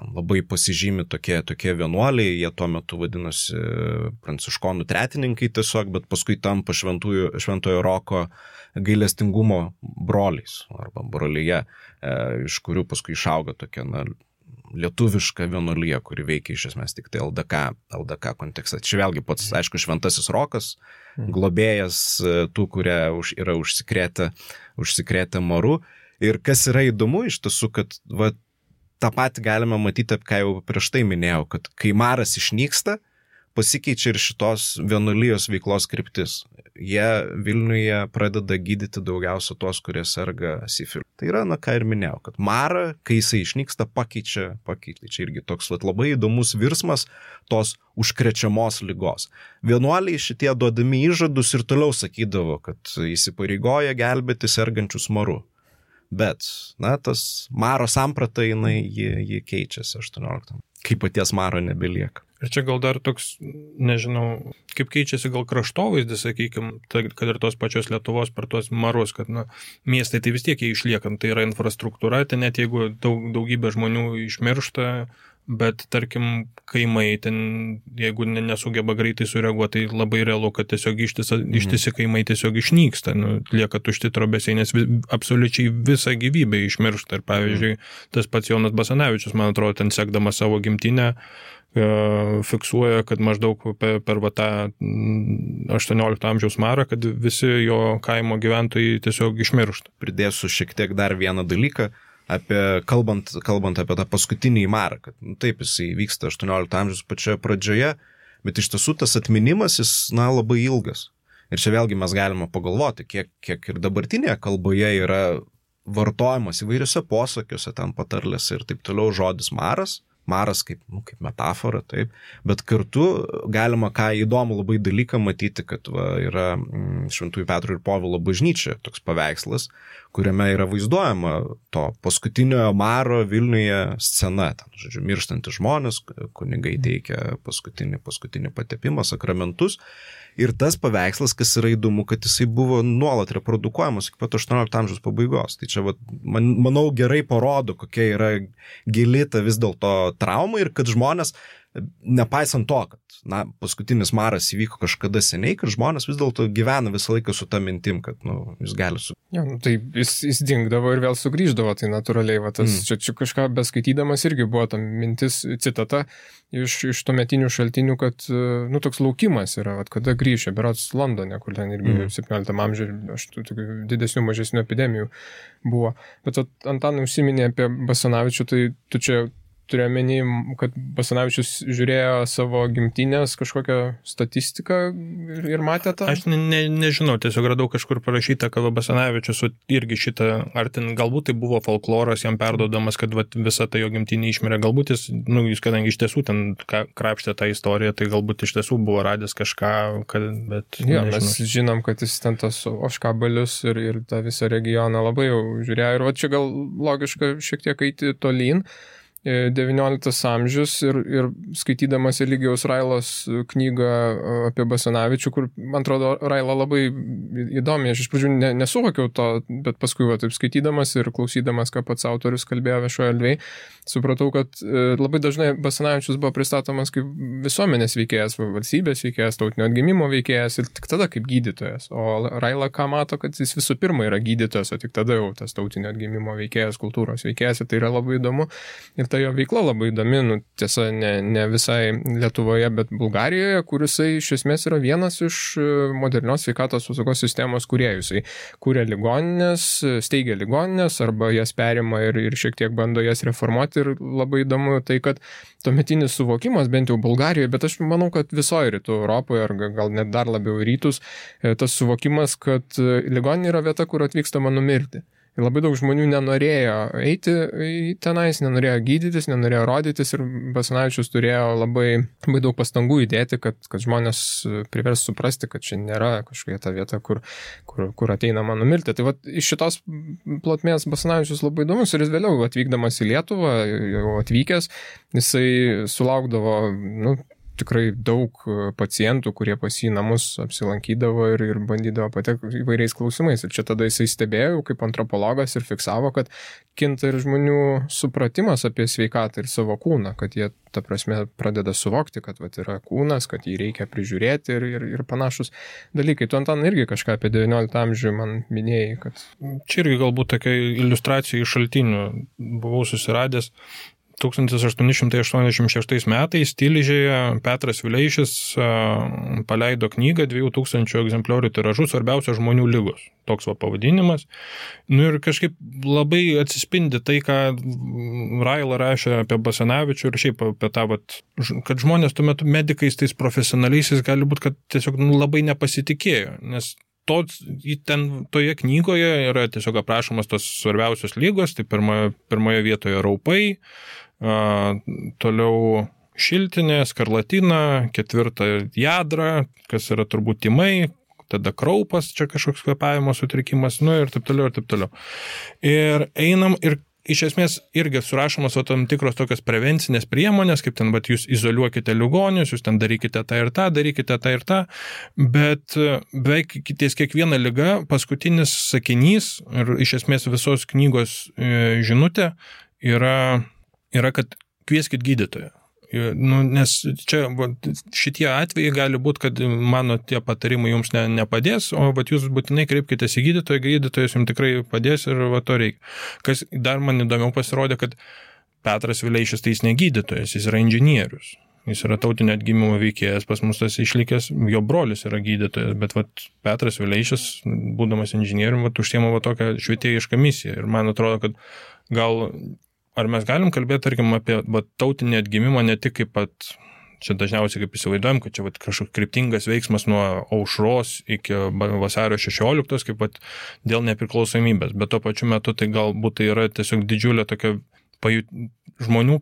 labai pasižymi tokie vienuoliai, jie tuo metu vadinosi pranciškonų tretininkai tiesiog, bet paskui tampa šventojo Roko gailestingumo broliais arba brolyje, iš kurių paskui išauga tokia lietuviška vienuolija, kuri veikia iš esmės tik tai LDK kontekste. Čia vėlgi pats, aišku, šventasis Rokas, globėjas tų, kurie yra užsikrėtę maru. Ir kas yra įdomu iš tiesų, kad tą patį galime matyti, ką jau prieš tai minėjau, kad kai maras išnyksta, pasikeičia ir šitos vienuolijos veiklos kryptis. Jie Vilniuje pradeda gydyti daugiausia tuos, kurie serga sifiliu. Tai yra, ką ir minėjau, kad marą, kai jisai išnyksta, pakeičia. Čia irgi toks labai įdomus virsmas tos užkrečiamos ligos. Vienuoliai šitie duodami įžadus ir toliau sakydavo, kad įsipareigoja gelbėti sergančius maru. Bet, tas maro samprata, ji keičiasi 18. Kai paties maro nebelieka. Ir čia gal dar toks, nežinau, kaip keičiasi gal kraštovaizdis, sakykime, kad ir tos pačios Lietuvos per tuos marus, kad miestai tai vis tiek jie išliekant, tai yra infrastruktūra, tai net jeigu daugybė žmonių išmiršta bet tarkim kaimai ten, jeigu nesugeba greitai sureaguoti, tai labai realu, kad tiesiog ištisi kaimai tiesiog išnyksta, lieka tušti trobesiai, nes absoliučiai visą gyvybę išmiršta. Ir pavyzdžiui, tas pats Jonas Basanavičius, man atrodo, ten sekdamas savo gimtinę, fiksuoja, kad maždaug per tą 18 amžiaus marą, kad visi jo kaimo gyventojai tiesiog išmiršta. Pridėsiu šiek tiek dar vieną dalyką, kalbant apie tą paskutinį marą, kad taip, jisai vyksta 18 amžiaus pačioje pradžioje, bet iš tiesų tas atminimas jis labai ilgas. Ir čia vėlgi mes galime pagalvoti, kiek ir dabartinėje kalboje yra vartojamas įvairiuose posakiuose, ten patarlėse ir taip toliau žodis maras kaip metafora, taip, bet kartu galima ką įdomų labai dalyką matyti, kad yra Šventųjų Petro ir Povilo bažnyčia toks paveikslas, kuriame yra vaizduojama to paskutiniojo maro Vilniuje scena, ten, žodžiu, mirštantys žmonės, kunigai teikia paskutinį patepimą, sakramentus. Ir tas paveikslas, kas yra įdomu, kad jisai buvo nuolat reprodukuojamas iki pat 18 amžiaus pabaigos. Tai čia, manau, gerai parodo, kokia yra gili ta vis dėlto trauma ir kad žmonės, nepaisant to, kad paskutinis maras įvyko kažkada seniai, kad žmonės vis dėlto gyvena visą laiką su ta mintim, kad jis gali tai jis dingdavo ir vėl sugrįždavo, tai natūraliai. Čia kažką beskaitydamas irgi buvo ta mintis, citata iš tuometinių šaltinių, kad toks laukimas yra, kada grįžė, berods Londone, kur ten irgi 17 amžiuje didesnių, mažesnių epidemijų buvo. Bet Antanai užsiminė apie Basanavičių, tai tu čia turiu omeny, kad Basanavičius žiūrėjo savo gimtinės kažkokią statistiką ir matė tą? Aš nežinau, tiesiog radau kažkur parašyta, kad Basanavičius irgi šitą, ar ten galbūt tai buvo folkloras jam perduodamas, kad visa ta jo gimtinė išmirė, galbūt jis, kadangi iš tiesų ten krapštė tą istoriją, tai galbūt iš tiesų buvo radęs kažką, bet mes žinom, kad jis ten tas Oškabalius ir tą visą regioną labai jau žiūrėjo ir čia gal logiška šiek tiek eiti tolyn. 19 amžius ir skaitydamas Eligijaus Railos knygą apie Basanavičių, kur, man atrodo, Raila labai įdomi, aš iš pradžių nesuvokiau to, bet paskui taip skaitydamas ir klausydamas, ką pats autorius kalbėjo viešoje erdvėje, supratau, kad labai dažnai Basanavičius buvo pristatomas kaip visuomenės veikėjas, valstybės veikėjas, tautinio atgimimo veikėjas ir tik tada kaip gydytojas. O Raila ką mato, kad jis visų pirma yra gydytojas, o tik tada jau tas tautinio atgimimo veikėjas, kultūros veikėjas, ir tai yra labai įdomu. Ir ta jo veikla labai įdomi, tiesa, ne visai Lietuvoje, bet Bulgarijoje, kur jisai iš esmės yra vienas iš modernios sveikatos apsaugos sistemos kūrėjų. Jisai kūrė ligoninės, steigia ligoninės arba jas perima ir šiek tiek bando jas reformuoti. Ir labai įdomu tai, kad tuometinis suvokimas, bent jau Bulgarijoje, bet aš manau, kad visoje rytų Europoje, ar gal net dar labiau rytus, tas suvokimas, kad ligoninė yra vieta, kur atvykstama numirti. Ir labai daug žmonių nenorėjo eiti tenais, nenorėjo gydytis, nenorėjo rodytis ir Basanavičius turėjo labai daug pastangų įdėti, kad žmonės privers suprasti, kad čia nėra kažkokia ta vieta, kur ateinama numirti. Tai iš šitos plotmės Basanavičius labai įdomus ir jis vėliau atvykdamas į Lietuvą, jau atvykęs, jisai sulaukdavo, tikrai daug pacientų, kurie pas jį namus apsilankydavo ir bandydavo patekti įvairiais klausimais. Ir čia tada jisai stebėjo kaip antropologas ir fiksavo, kad kinta ir žmonių supratimas apie sveikatą ir savo kūną, kad jie, ta prasme, pradeda suvokti, kad yra kūnas, kad jį reikia prižiūrėti ir panašus dalykai. Tu, Antanai, irgi kažką apie 19 amžių man minėjai, kad... Čia irgi galbūt tokia iliustracija iš šaltinių buvau susiradęs. 1886 metais Tilžėje Petras Vileišis paleido knygą 2000 egzempliorių tiražu Svarbiausios žmonių ligos. Toks pavadinimas. Ir kažkaip labai atsispindi tai, ką Raila rašė apie Basanavičių ir šiaip apie tą, kad žmonės tuo metu medikais, tais profesionaliaisiais gali būti, kad tiesiog labai nepasitikėjo, nes toje knygoje yra tiesiog aprašomas tos svarbiausios lygos, tai pirmoje vietoje raupai, toliau šiltinė, skarlatina, 4 jadra, kas yra turbūt tymai, tada kraupas, čia kažkoks kvėpavimo sutrikimas, ir taip toliau, ir taip toliau. Ir einam ir iš esmės irgi surašomos tam tikros tokios prevencinės priemonės, kaip ten, jūs izoliuokite ligonius, jūs ten darykite tą ir tą, bet beveik ties kiekviena liga paskutinis sakinys ir iš esmės visos knygos žinutė yra, kad kvieskit gydytoją. Nu, nes čia šitie atvejai gali būti, kad mano tie patarimai jums nepadės, o jūs būtinai kreipkitės į gydytoją, gydytojas jums tikrai padės ir to reikia. Kas dar man įdomiau pasirodė, kad Petras Vileišis tai jis ne gydytojas, jis yra inžinierius. Jis yra tautinio atgimimo veikėjas, pas mus tas išlikęs, jo brolis yra gydytojas, bet Petras Vileišis, būdamas inžinierium, užsiema tokią švietėjišką misiją. Ir man atrodo, kad gal ar mes galim kalbėti, tarkim, apie tautinį atgimimą ne tik kaip čia dažniausiai kaip įsivaizduojam, kad čia kažkoks kryptingas veiksmas nuo aušros iki vasario 16, kaip dėl nepriklausomybės, bet tuo pačiu metu tai galbūt tai yra tiesiog didžiulė tokia žmonių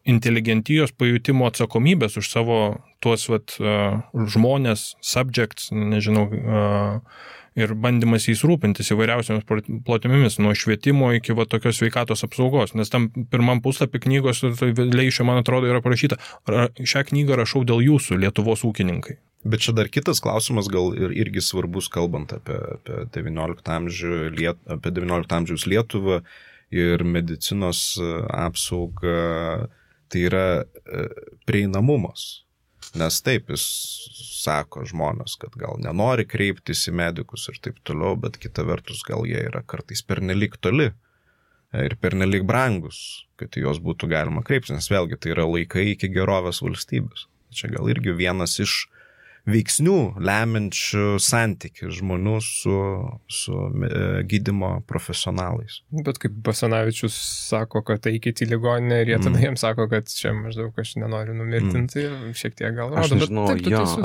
inteligentijos pajutimo atsakomybės už savo tuos žmonės, subjects, nežinau, ir bandymas jais rūpintis įvairiausiamis plotmėmis, nuo švietimo iki tokios sveikatos apsaugos. Nes tam pirmam puslapį knygos Vileišio, man atrodo, yra parašyta, šią knygą rašau dėl jūsų, Lietuvos ūkininkai. Bet čia dar kitas klausimas, gal irgi svarbus, kalbant apie 19 amžiaus Lietuvą ir medicinos apsaugą, tai yra prieinamumas. Nes taip, jis sako žmonės, kad gal nenori kreiptis į medikus ir taip toliau, bet kita vertus gal jie yra kartais pernelyg toli ir pernelyg brangus, kad į juos būtų galima kreiptis, nes vėlgi tai yra laikai iki gerovės valstybės. Čia gal irgi vienas iš veiksnių lemiančių santykį žmonių su gydymo profesionalais. Bet kaip Basanavičius sako, kad eikit į ligoninę ir jie tada jiems sako, kad čia maždaug aš nenoriu numirtinti, šiek tiek gal rodo. Aš nežinau,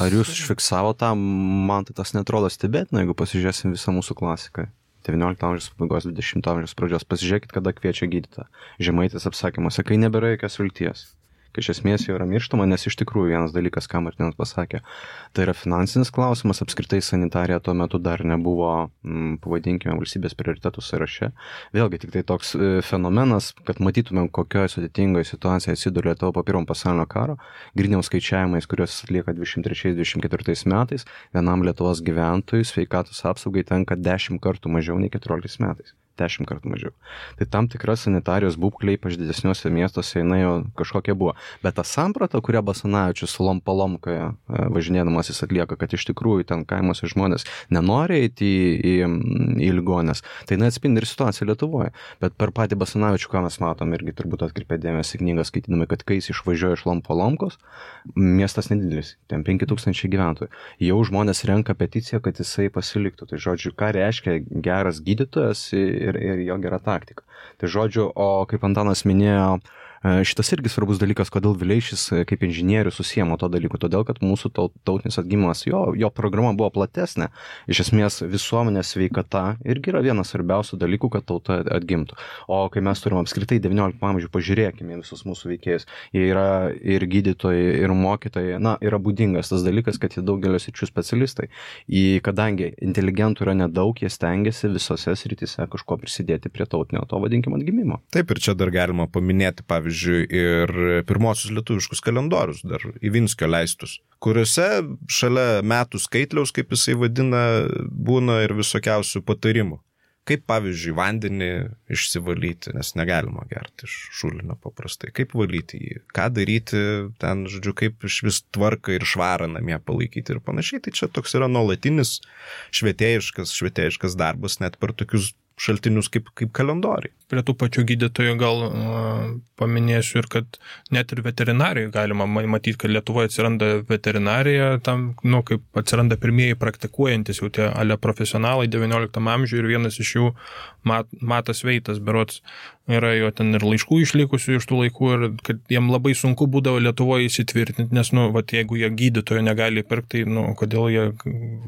ar jūs užfiksavo tą, man tai tas netrodo stebėtina, jeigu pasižiūrėsim visą mūsų klasiką. 19 amžiaus pabaigos, 20 amžiaus pradžios. Pasižiūrėkit, kada kviečia gydytoją. Žemaitis apsakymuose, kai nebėra jokios vilties. Kai iš esmės jau yra mirštama, nes iš tikrųjų vienas dalykas, ką Martinas pasakė, tai yra finansinis klausimas, apskritai sanitarija tuo metu dar nebuvo, pavadinkime, valstybės prioritetų sąraše. Vėlgi tik tai toks fenomenas, kad matytumėm, kokioje sudėtingoje situacijoje atsiduria Lietuva po Pirmo pasaulinio karo, griniaus skaičiavimais, kuriuos atlieka 23-24 metais, vienam Lietuvos gyventojui sveikatos apsaugai tenka 10 kartų mažiau nei 14 metais. 10 kartų mažiau. Tai tam tikra sanitarijos būklė, ypač didesniuose miestuose, jinai jau kažkokia buvo. Bet ta samprata, kurią Basanavičius lomkoje važinėdamas jis atlieka, kad iš tikrųjų ten kaimuose žmonės nenori eiti į ligoninės, tai neatspindi ir situaciją Lietuvoje. Bet per patį Basanavičių, ką mes matom, irgi turbūt atkreipė dėmesį knygą skaitydami, kad kai jis išvažiuoja iš Lomkos, miestas nedidelis, ten 5000 gyventojų. Jau žmonės renka peticiją, kad jisai pasiliktų. Tai žodžiu, ką reiškia geras gydytojas ir jo gera taktika. Tai žodžiu, o kaip Antanas minėjo, šitas irgi svarbus dalykas, kodėl Vileišis kaip inžinierius susiemo to dalyku, todėl kad mūsų tautinis atgimimas, jo programa buvo platesnė, iš esmės visuomenės sveikata irgi yra vienas svarbiausių dalykų, kad tauta atgimtų. O kai mes turim apskritai 19 amžių, pažiūrėkime visus mūsų veikėjus, jie yra ir gydytojai, ir mokytojai, yra būdingas tas dalykas, kad jie daugelio sričių specialistai. Kadangi inteligentų yra nedaug, jie stengiasi visose srityse kažko prisidėti prie tautinio to vadinkimo atgimimo. Taip, ir čia dar galima paminėti, pavyzdžiui, ir pirmosius lietuviškus kalendorius, dar Ivinskio leistus, kuriuose šalia metų skaitliaus, kaip jisai vadina, būna ir visokiausių patarimų. Kaip, pavyzdžiui, vandenį išsivalyti, nes negalima gerti iš šulinio paprastai. Kaip valyti jį, ką daryti ten, žodžiu, kaip iš vis tvarką ir švarą namie palaikyti ir panašiai. Tai čia toks yra nuolatinis švietėjiškas darbas, net per tokius šaltinius kaip kalendoriai. Prie tų pačių gydytojų gal paminėsiu ir kad net ir veterinarijai galima matyti, kad Lietuvoje atsiranda veterinarija, tam, kaip atsiranda pirmieji praktikuojantis jau tie profesionalai 19 amžiuje ir vienas iš jų Matas Veitas, berods, yra jo ten ir laiškų išlikusių iš tų laikų ir kad jiem labai sunku būdavo Lietuvoje įsitvirtinti, nes, jeigu jie gydytojo negali pirkti, kodėl jie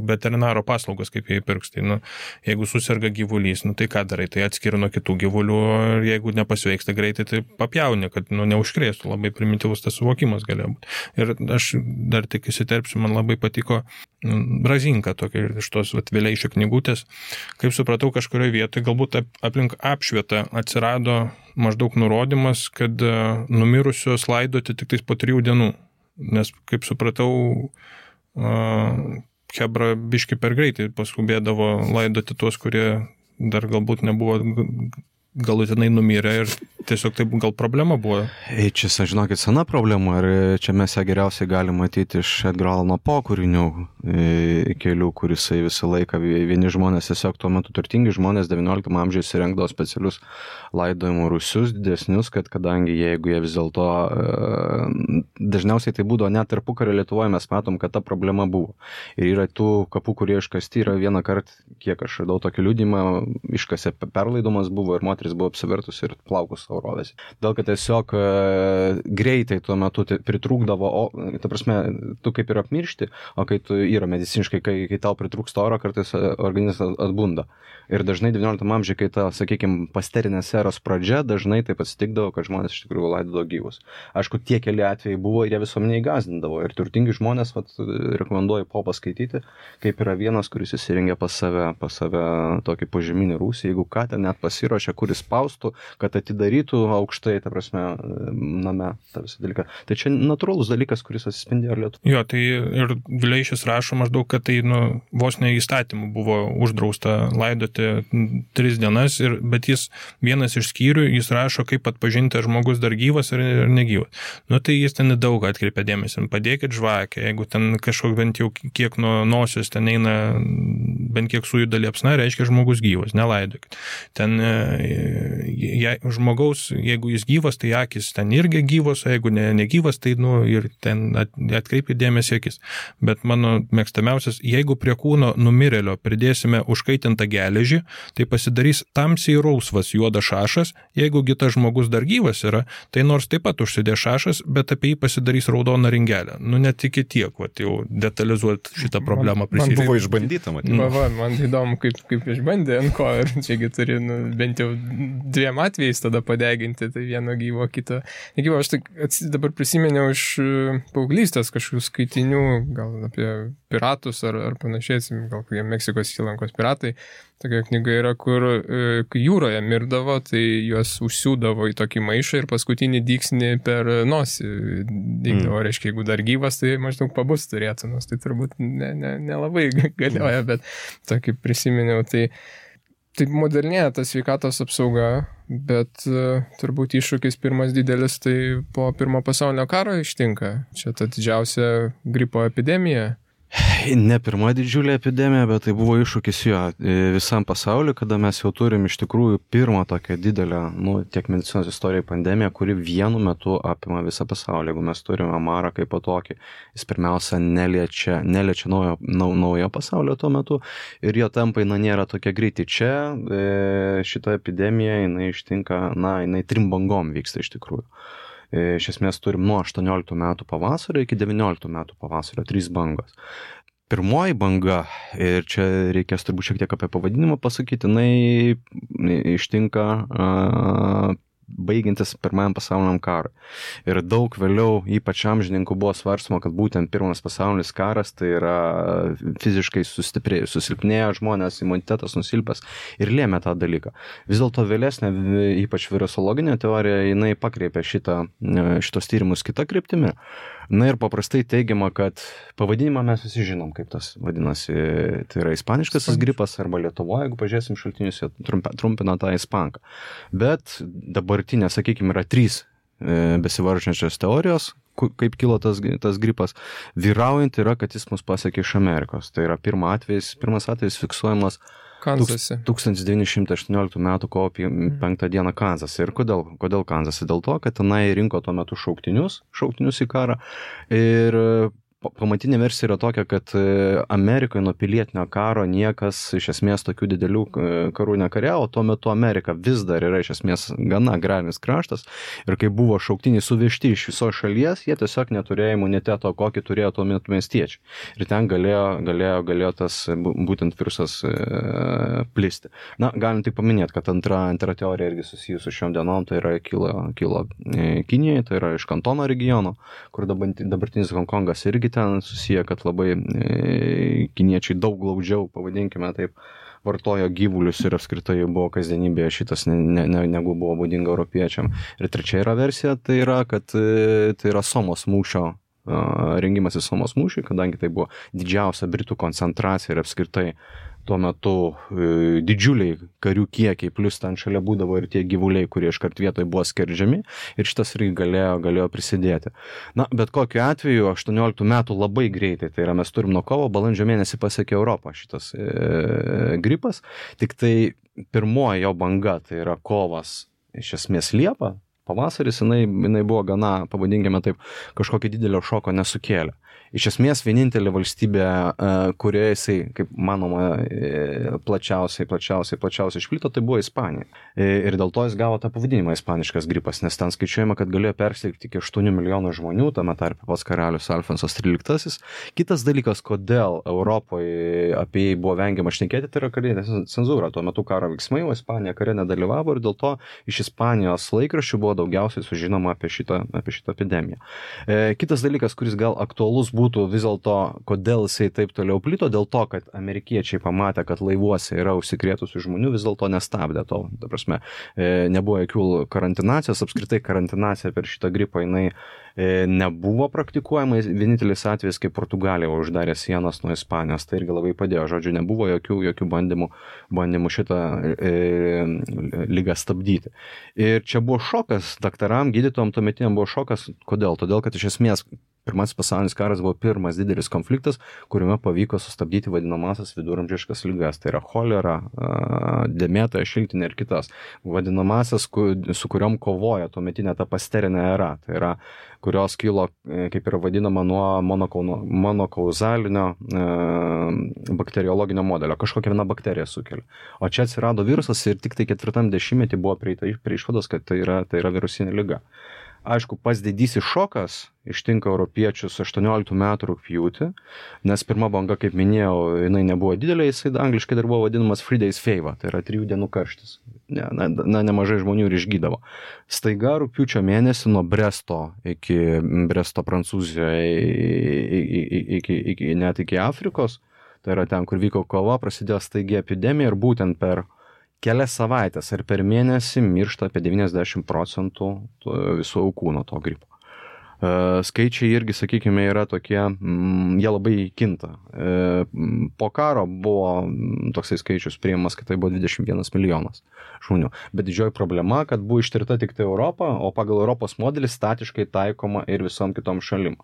veterinaro paslaugos kaip jie pirks, tai, jeigu susirga gyvulys, tai ką darai, tai atskiri nuo kitų gyvulių ir jeigu nepasveiksta greitai, tai papjauni, kad neužkrėstų, labai primityvus tas suvokimas galėjo būti. Ir aš dar tik įsiterpsiu, man labai patiko Razinka tokia iš tos Vileišio knygutės, kaip supratau kažkurioje vietoje, galbūt aplink apšvietą atsirado maždaug nurodymas, kad numirusios laidoti tik tais po 3 dienų, nes kaip supratau, chebra biški per greitai paskubėdavo laidoti tuos, kurie dar galbūt nebuvo galutinai numirė ir tiesiog tai gal problema buvo. Čia, žinokit, sena problema ir čia mes ją geriausiai galime matyti iš Edgaro Alano Poe kūrinių kelių, kurisai visą laiką vieni žmonės, tiesiog tuo metu turtingi žmonės 19 amžiuje įsirengdavo specialius laidojimo rūsius didesnius, kad kadangi jeigu jie vis dėlto dažniausiai tai būdavo net tarpukario Lietuvoje, mes matom, kad ta problema buvo. Ir yra tų kapų, kurie iškasti, yra vieną kartą, kiek aš radau tokį liudymą, iškasė perlaidomas buvo ir moteris buvo apsivertus ir plaukus savo rovėsi. Dėl kad tiesiog greitai tuo metu pritrūkdavo, ta prasme, tu kaip ir apmiršti, o kai tu yra mediciniškai, kai tau pritrūksta oro, kartais organizmas atbunda. Ir dažnai 19 amžiuje, kai ta, sakykime, pasterinės eros pradžia, dažnai taip atsitikdavo, kad žmonės iš tikrųjų laidodavo gyvus. Aišku, tie keli atvejai buvo ir jie visuomeniai gąsdindavo. Ir turtingi žmonės, rekomenduoju Poe paskaityti, kaip yra vienas, kuris įsirengė pas save tokį požeminį rūsį, jeigu ką ten net pasiruošė, kuris spaustų, kad atidarytų aukštai, ta prasme, name, tą visą dalyką. Tai čia natūralus dalykas, kuris atsispindėjo Lietuvoje. Jo, tai ir Vileišis rašo maždaug, kad tai vos ne įstatymų buvo uždrausta laidoti 3 dienas, bet jis vienas iš skyrių, jis rašo, kaip atpažinti, ar žmogus dar gyvas ar negyvas. Tai jis ten daug atkreipia dėmesį. Padėkit žvakę, jeigu ten kažkoks bent jau kiek nuo nosios ten eina, bent kiek sujuda liepsna, reiškia žmogus gyvas, nelaidokit. Ten žmogaus, jeigu jis gyvas, tai akis ten irgi gyvos, o jeigu negyvas, tai ir ten atkreipia dėmesį akis. Bet mano mėgstamiausias, jeigu prie kūno numirėlio pridėsime užkaitintą geležį, tai pasidarys tamsiai rausvas juodas šašas, jeigu tas žmogus dar gyvas yra, tai nors taip pat užsidės šašas, bet apie jį pasidarys raudona ringelė. Net iki tiek, jau detalizuoti šitą problemą prisidėti. Man buvo išbandyta, matyti. Man įdomu, kaip išbandė ant ko, ir čiagi turi bent jau 2 atvejais tada padeginti, tai vieno gyvo, kito negyvo. Aš dabar prisiminiau iš paauglystės kažkokių skaitinių, gal apie piratus ar panašiai, gal kokie Meksikos įlankos piratai. Tokia knyga yra, kur kai jūroje mirdavo, tai juos užsiūdavo į tokį maišą ir paskutinį dyksnį per nosį dygdavo. Reiškia, jeigu dar gyvas, tai maždaug pabus turėtų, nors tai turbūt nelabai galioja, bet tokį prisiminiau. Tai modernėja ta sveikatos apsauga, bet turbūt iššūkis pirmas didelis, tai po Pirmo pasaulinio karo ištinka. Čia ta didžiausia gripo epidemija. Ne pirma didžiulė epidemija, bet tai buvo iššūkis visam pasauliu, kada mes jau turim iš tikrųjų pirmą tokią didelę, tiek medicinos istorijai pandemiją, kuri vienu metu apima visą pasaulį. Jeigu mes turime marą kaip po tokį, jis pirmiausia neliečia naujo pasaulio tuo metu ir jo tempai nėra tokie greiti. Čia šita epidemija, jinai ištinka, jinai 3 bangom vyksta iš tikrųjų. Iš esmės turim nuo 18 metų pavasario iki 19 metų pavasario 3 bangos. Pirmoji banga, ir čia reikės turbūt šiek tiek apie pavadinimą pasakyti, jinai ištinka baigiantis Pirmajam pasauliniam karui. Ir daug vėliau, ypač amžininkų, buvo svarstoma, kad būtent Pirmas pasaulinis karas tai yra fiziškai susilpnėję žmonės, imunitetas nusilpęs ir lėmė tą dalyką. Vis dėlto vėlesnė, ypač virusologinė teorija, jinai pakreipė šitos tyrimus kitą kryptimį. Ir paprastai teigiama, kad pavadinimą mes visi žinom, kaip tas vadinasi, tai yra ispaniškasis gripas, arba Lietuvoje, jeigu pažiūrėsim šaltinius, jie trumpina tą ispanką. Bet dabartinė, sakykime, yra 3 besivaržančios teorijos, kaip kilo tas gripas. Vyraujant yra, kad jis mus pasiekė iš Amerikos. Tai yra pirmas atvejis fiksuojamas Kanzase. 1918 metų kovo 5 dieną Kanzase. Ir kodėl Kanzase? Dėl to, kad tenai rinko tuo metu šauktinius į karą. Ir pamatinė versija yra tokia, kad Amerikoje nuo pilietinio karo niekas iš esmės tokių didelių karų nekariavo, tuo metu Amerika vis dar yra iš esmės gana agrarinis kraštas ir kai buvo šauktiniai suvežti iš visos šalies, jie tiesiog neturėjo imuniteto, kokį turėjo tuo metu miestiečiai. Ir ten galėjo tas būtent virusas plisti. Galim tik paminėti, kad antra teorija irgi susijusi su šiom dienom, tai yra kilo Kinijoje, tai yra iš Kantono regiono, kur dabartinis Hongkongas irgi ten susiję, kad labai kiniečiai daug glaudžiau, pavadinkime taip, vartojo gyvulius ir apskritai buvo kasdienybėje šitas negu buvo būdinga europiečiam. Ir trečia yra versija, tai yra, kad tai yra Somos mūšio rengimas į Somos mūšį, kadangi tai buvo didžiausia Britų koncentracija ir apskritai tuo metu didžiuliai karių kiekiai, plus ten šalia būdavo ir tie gyvuliai, kurie iškart vietoj buvo skerdžiami ir šitas irgi galėjo prisidėti. Na, bet kokiu atveju 18 metų labai greitai, tai yra mes turim nuo kovo, balandžio mėnesį pasiekė Europą šitas gripas, tik tai pirmoji jo banga, tai yra kovas iš esmės Liepa, pavasaris, jinai buvo gana, pavadinkime taip, kažkokio didelio šoko nesukėlė. Iš esmės vienintelė valstybė, kurioje jisai, kaip manoma, plačiausiai išplito, tai buvo Ispanija. Ir dėl to jis gavo tą pavadinimą ispaniškas gripas, nes ten skaičiuojama, kad galėjo persirgti iki 8 milijonų žmonių, tame tarpe pats karalius Alfonsas XIII. Kitas dalykas, kodėl Europoje apie jį buvo vengiama šnekėti, tai yra karinė cenzūra. Tuo metu karo veiksmai, o Ispanija kare nedalyvavo ir dėl to iš Ispanijos laikraščių buvo daugiausiai sužinoma apie šitą epidemiją. Kitas dalykas, kuris gal aktualus būtų vis dėlto, kodėl jisai taip toliau plito, dėl to, kad amerikiečiai pamatė, kad laivuose yra užsikrėtusių žmonių, vis dėlto nestabdė to. Ta prasme, nebuvo jokių karantinacijos, apskritai karantinacija per šitą gripą jinai nebuvo praktikuojama, vienintelis atvejis, kai Portugalija uždarė sienas nuo Ispanijos, tai irgi labai padėjo, žodžiu, nebuvo jokių bandymų šitą ligą stabdyti. Ir čia buvo šokas, daktaram, gydytojam tuometiniam buvo šokas, kodėl? Todėl, kad iš esmės Pirmasis pasaulinis karas buvo pirmas didelis konfliktas, kuriame pavyko sustabdyti vadinamasias viduramžiškas ligas. Tai yra cholera, dėmėtoja, šiltinė ir kitas. Vadinamasias, su kuriom kovoja tuometinė ta pasterinė era. Tai yra, kurios kilo, kaip yra vadinama, nuo monokauzalinio bakteriologinio modelio. Kažkokia viena bakterija sukelia. O čia atsirado virusas ir tik tai 4 dešimtmetį buvo prieita prie išvados, kad tai yra virusinė liga. Aišku, pats didysis šokas ištinka europiečius 18 metų rugpjūtį, nes pirma banga, kaip minėjau, jinai nebuvo didelė, jisai angliškai dar buvo vadinamas 3 days fever, tai yra 3 dienų karštis. Nemažai žmonių ir išgydavo. Staiga rugpjūčio mėnesį nuo Bresto Prancūzijoje net iki Afrikos, tai yra ten, kur vyko kova, prasidėjo staigiai epidemija ir būtent per kelias savaitės ar per mėnesį miršta apie 90% visų aukų nuo to gripo. Skaičiai irgi, sakykime, yra tokie, jie labai kinta. Po karo buvo toksai skaičius priimamas, kad tai buvo 21 milijonas žmonių. Bet didžioji problema, kad buvo ištirta tik tai Europą, o pagal Europos modelį statiškai taikoma ir visom kitom šalim.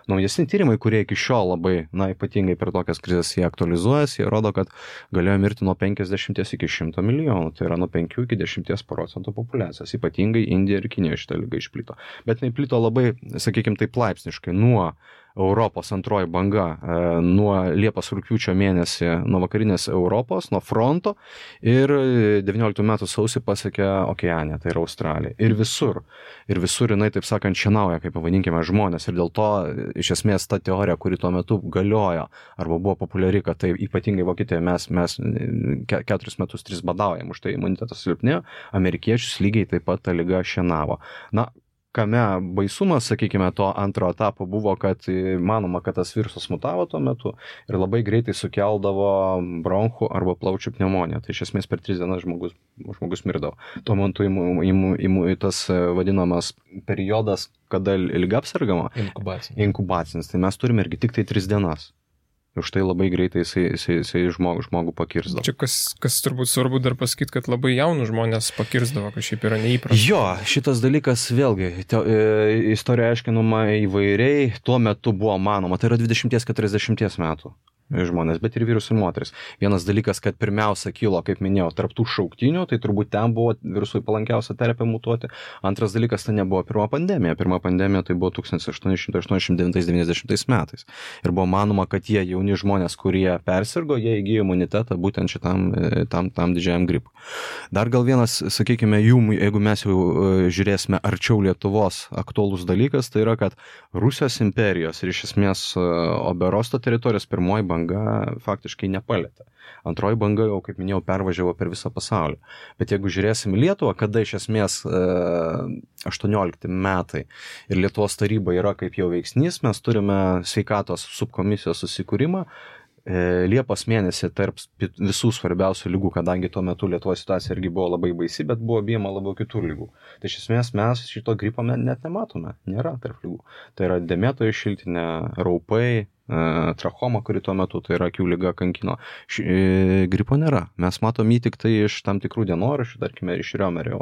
Naujesni tyrimai, kurie iki šiol labai, ypatingai per tokias krizės jie aktualizuojasi, jie rodo, kad galėjo mirti nuo 50 iki 100 milijonų, tai yra nuo 5 iki 10% populiacijos. Ypatingai Indija ir Kinija šitą ligą išplito. Bet jinai plito labai, sakykime, taip laipsniškai nuo Europos antroji banga, nuo Liepos rugpjūčio mėnesį, nuo vakarinės Europos, nuo fronto ir 19 metų sausį pasiekė Okeaniją, tai yra Australija. Ir visur jinai, taip sakant, šienauja, kaip pavadinkime, žmonės. Ir dėl to, iš esmės, ta teorija, kuri tuo metu galiojo arba buvo populiari, kad tai ypatingai Vokietijoje mes 4 metus 3 badaujam, už tai imunitetas silpnėjo, amerikiečius lygiai taip pat ta liga šienavo. Kame baisumas, sakykime, to antro etapo buvo, kad manoma, kad tas virusas mutavo tuo metu ir labai greitai sukeldavo bronchų arba plaučių pneumoniją. Tai iš esmės per 3 dienas žmogus mirdavo. Tuo metu tas vadinamas periodas, kada liga apsergama, inkubacinis. Tai mes turime irgi tik tai 3 dienas. Už tai labai greitai jisai žmogų pakirsdavo. Čia kas turbūt svarbu dar pasakyti, kad labai jaunų žmonės pakirsdavo, kad šiaip yra neįprasta. Jo, šitas dalykas vėlgi, istorija aiškinama įvairiai, tuo metu buvo manoma, tai yra 20-40 metų žmonės, bet ir vyrus ir moteris. Vienas dalykas, kad pirmiausia kilo, kaip minėjau, tarptų šauktinių, tai turbūt ten buvo virusui palankiausia terpė mutuoti. Antras dalykas, tai nebuvo pirma pandemija. Pirma pandemija tai buvo 1889-90 metais. Ir buvo manoma, kad tie jauni žmonės, kurie persirgo, jie įgijo imunitetą būtent šitam didžiajam gripui. Dar gal vienas, sakykime, jeigu mes jau žiūrėsime arčiau Lietuvos aktualus dalykas, tai yra, kad Rusijos imperijos ir iš esmės Oberosto teritorijos pirmoji banga faktiškai nepalėtė. Antroji banga jau, kaip minėjau, pervažiavo per visą pasaulį. Bet jeigu žiūrėsim Lietuvą, kada iš esmės 18 metai ir Lietuvos taryba yra kaip jau veiksnys, mes turime sveikatos subkomisijos susikūrimą, Liepos mėnesį tarp visų svarbiausių lygų, kadangi tuo metu Lietuvos situacija irgi buvo labai baisi, bet buvo bijama labiau kitų lygų. Tai iš esmės mes šito gripo net nematome, nėra tarp lygų. Tai yra dėmėtojų šiltinė, raupai, trachoma, kuri tuo metu, tai yra akių liga kankino. Gripo nėra. Mes matom jį tik tai iš tam tikrų dienoraščių, tarkime, iš Riomerio,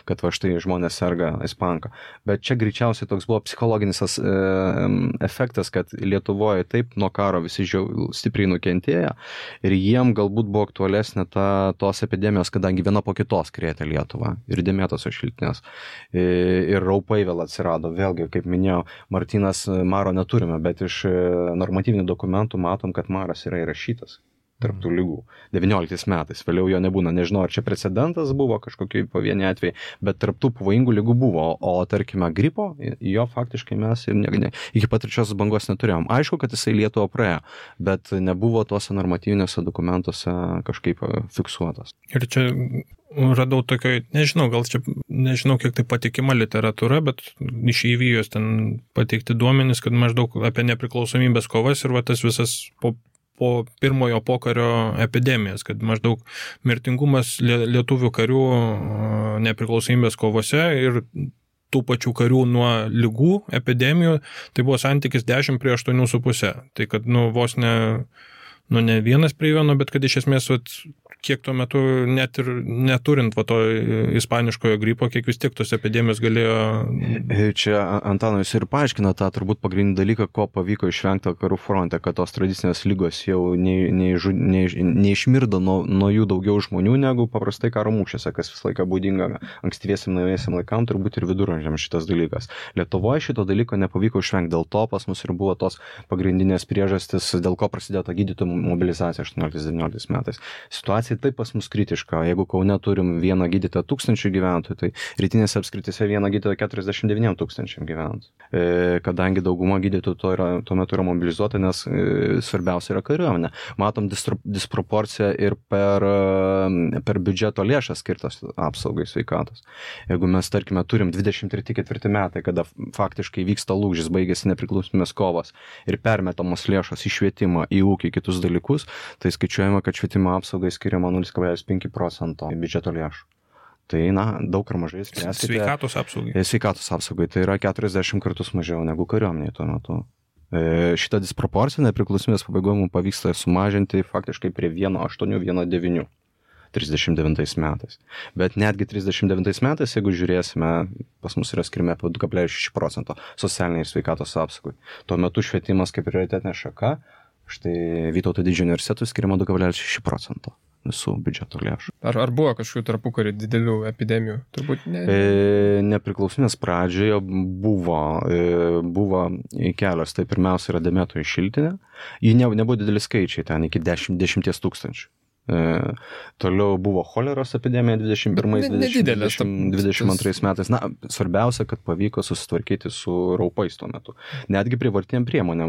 kad va štai žmonės serga ispanka. Bet čia greičiausiai toks buvo psichologinis efektas, kad Lietuvoje taip nuo karo visi stipriai nukentėjo ir jiem galbūt buvo aktualesnė tos epidemijos, kadangi viena po kitos krėtė Lietuvą ir dėmėtosios šiltinės. Ir raupai vėl atsirado. Vėlgi, kaip minėjau, Martynas, maro neturime, bet iš normatyvinių dokumentų matom, kad maras yra įrašytas tarp tų lygų 19 metais. Vėliau jo nebūna. Nežinau, ar čia precedentas buvo kažkokie pavieniai atvejai, bet tarp tų pavojingų lygų buvo. O tarkime, gripo, jo faktiškai mes ir iki pat trečiosios bangos neturėjom. Aišku, kad jisai Lietuvą praėjo, bet nebuvo tuose normatyviniuose dokumentuose kažkaip fiksuotas. Ir čia radau tokio, nežinau, kiek tai patikima literatūra, bet iš įvyjos ten pateikti duomenys, kad maždaug apie nepriklausomybės kovas ir va tas visas po pirmojo pokario epidemijas, kad maždaug mirtingumas lietuvių karių nepriklausomybės kovose ir tų pačių karių nuo ligų, epidemijų, tai buvo santykis 10 prie 8,5. Tai kad, vos ne 1 prie 1, bet kad iš esmės, kiek tuo metu net ir neturint to ispaniškojo gripo, kiek vis tiek tos epidemijos galėjo... Čia Antanas ir paaiškina tą turbūt pagrindinį dalyką, ko pavyko išvengti karų fronte, kad tos tradicinės lygos jau neišmirdo nuo jų daugiau žmonių negu paprastai karo mūšiuose, kas visą laiką būdinga ankstyviesiam naujiesiam laikam, turbūt ir viduramžiams šitas dalykas. Lietuvoje šito dalyko nepavyko išvengti, dėl to pas mus ir buvo tos pagrindinės priežastis, dėl ko prasidėjo ta gydytojų mobilizacija 18-19 metais. Situacija taip pas mus kritiška. Jeigu Kaune turim vieną gydytoją 1000 gyventojų, tai rytinėse apskrityse vieną gydytoją 49 000 gyventojų. Kadangi dauguma gydytojų tuo metu yra mobilizuota, nes svarbiausia yra kariuomenė. Matom disproporciją ir per biudžeto lėšas skirtas apsaugai sveikatos. Jeigu mes, tarkime, turim 23-4 metai, kada faktiškai vyksta lūžis, baigėsi nepriklausomybės kovos ir permetamos lėšos į švietimą, į ūkį, kitus dalykus, tai skaičiuojama, kad švietimo apsaugai skiriama 0,5% biudžeto lėšų. Tai, daug ar mažai spręskite. Sveikatos apsaugai. Sveikatos apsaugai. Tai yra 40 kartus mažiau negu kariuomenėje tuo metu. Šitą disproporciją nepriklausomybės pabaigoje mums pavyksta sumažinti faktiškai prie 1,8-1,9 39 metais. Bet netgi 39 metais, jeigu žiūrėsime, pas mus yra skirime apie 2,6% socialiniai ir sveikatos apsaugai. Tuo metu švietimas kaip prioritetinė šaka, štai Vytauto didžiojo universitetui skiriama 2,6% visų biudžeto lėšų. Ar buvo kažkokių tarpukarį didelių epidemijų? Turbūt ne. Nepriklausomybės pradžioje buvo kelios. Tai pirmiausia yra dėmėtojų šiltinė. Ji nebuvo dideli skaičiai, ten iki 10 000. Toliau buvo choleros epidemija 21-22 metais. Svarbiausia, kad pavyko susitvarkyti su raupais tuo metu. Netgi privartiem priemonėm,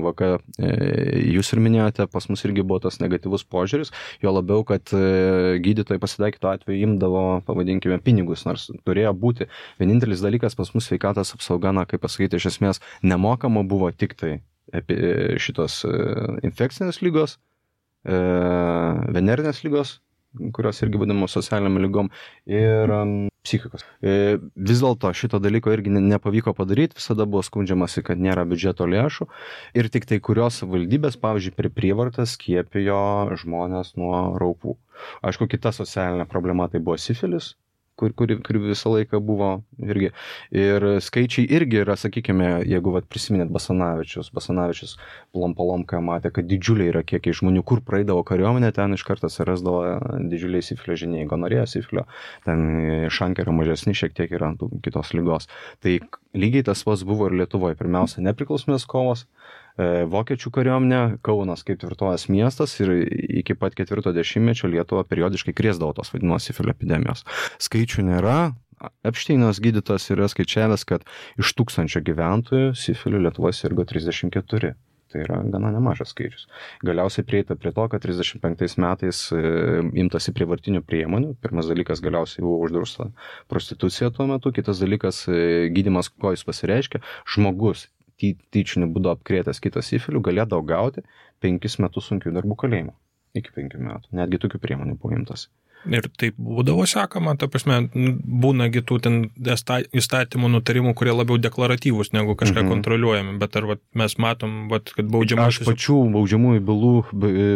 jūs ir minėjote, pas mus irgi buvo tas negatyvus požiūris, jo labiau, kad gydytojai pasitaikytų atveju imdavo, pavadinkime, pinigus, nors turėjo būti. Vienintelis dalykas pas mus sveikatos apsauga, kaip pasakyti, iš esmės nemokama buvo tik tai šitos infekcinės lygos, venerinės lygos, kurios irgi vadinamos socialiniam lygom, ir psichikos. Vis dėlto šito dalyko irgi nepavyko padaryti, visada buvo skundžiamasi, kad nėra biudžeto lėšų ir tik tai kurios valdybės, pavyzdžiui, per prievartą skiepijo žmonės nuo raupų. Aišku, kita socialinė problema tai buvo sifilis, kuri visą laiką buvo irgi. Ir skaičiai irgi yra, sakykime, jeigu prisiminėt Basanavičius Plomka matė, kad didžiuliai yra kiekiai žmonių, kur praeidavo kariuomenė, ten iš karto atsirasdavo didžiuliai sifilio žiniai, gonorėja sifilio, ten šankai yra mažesni, šiek tiek yra kitos lygos. Tai lygiai tas pats buvo ir Lietuvoje. Pirmiausia, nepriklausomybės kovos, vokiečių kariuomenė, Kaunas kaip tvirtovės miestas ir iki pat 40-mečio Lietuva periodiškai krėsdavo tos vadinamos sifilio epidemijos. Skaičių nėra. Epšteinas gydytojas yra skaičiavęs, kad iš 1000 gyventojų sifiliu Lietuvoje sirgo 34. Tai yra gana nemažas skaičius. Galiausiai prieita prie to, kad 35 metais imtasi prievartinių priemonių. Pirmas dalykas, galiausiai buvo uždrausta prostitucija tuo metu. Kitas dalykas, gydymas, ko jis pasireiškia. Žmogus tyčiniu būdu apkrėtęs kitą sifilių, galėdavo gauti 5 metus sunkių darbų kalėjimo. Iki 5 metų. Netgi tokių priemonių buvo imtas. Ir taip būdavo sekama, ta prasme, būnagi tų ten įstatymų nutarimų, kurie labiau deklaratyvūs negu kažką kontroliuojami, bet ar mes matom, kad baudžiamasis... Aš pačių baudžiamųjų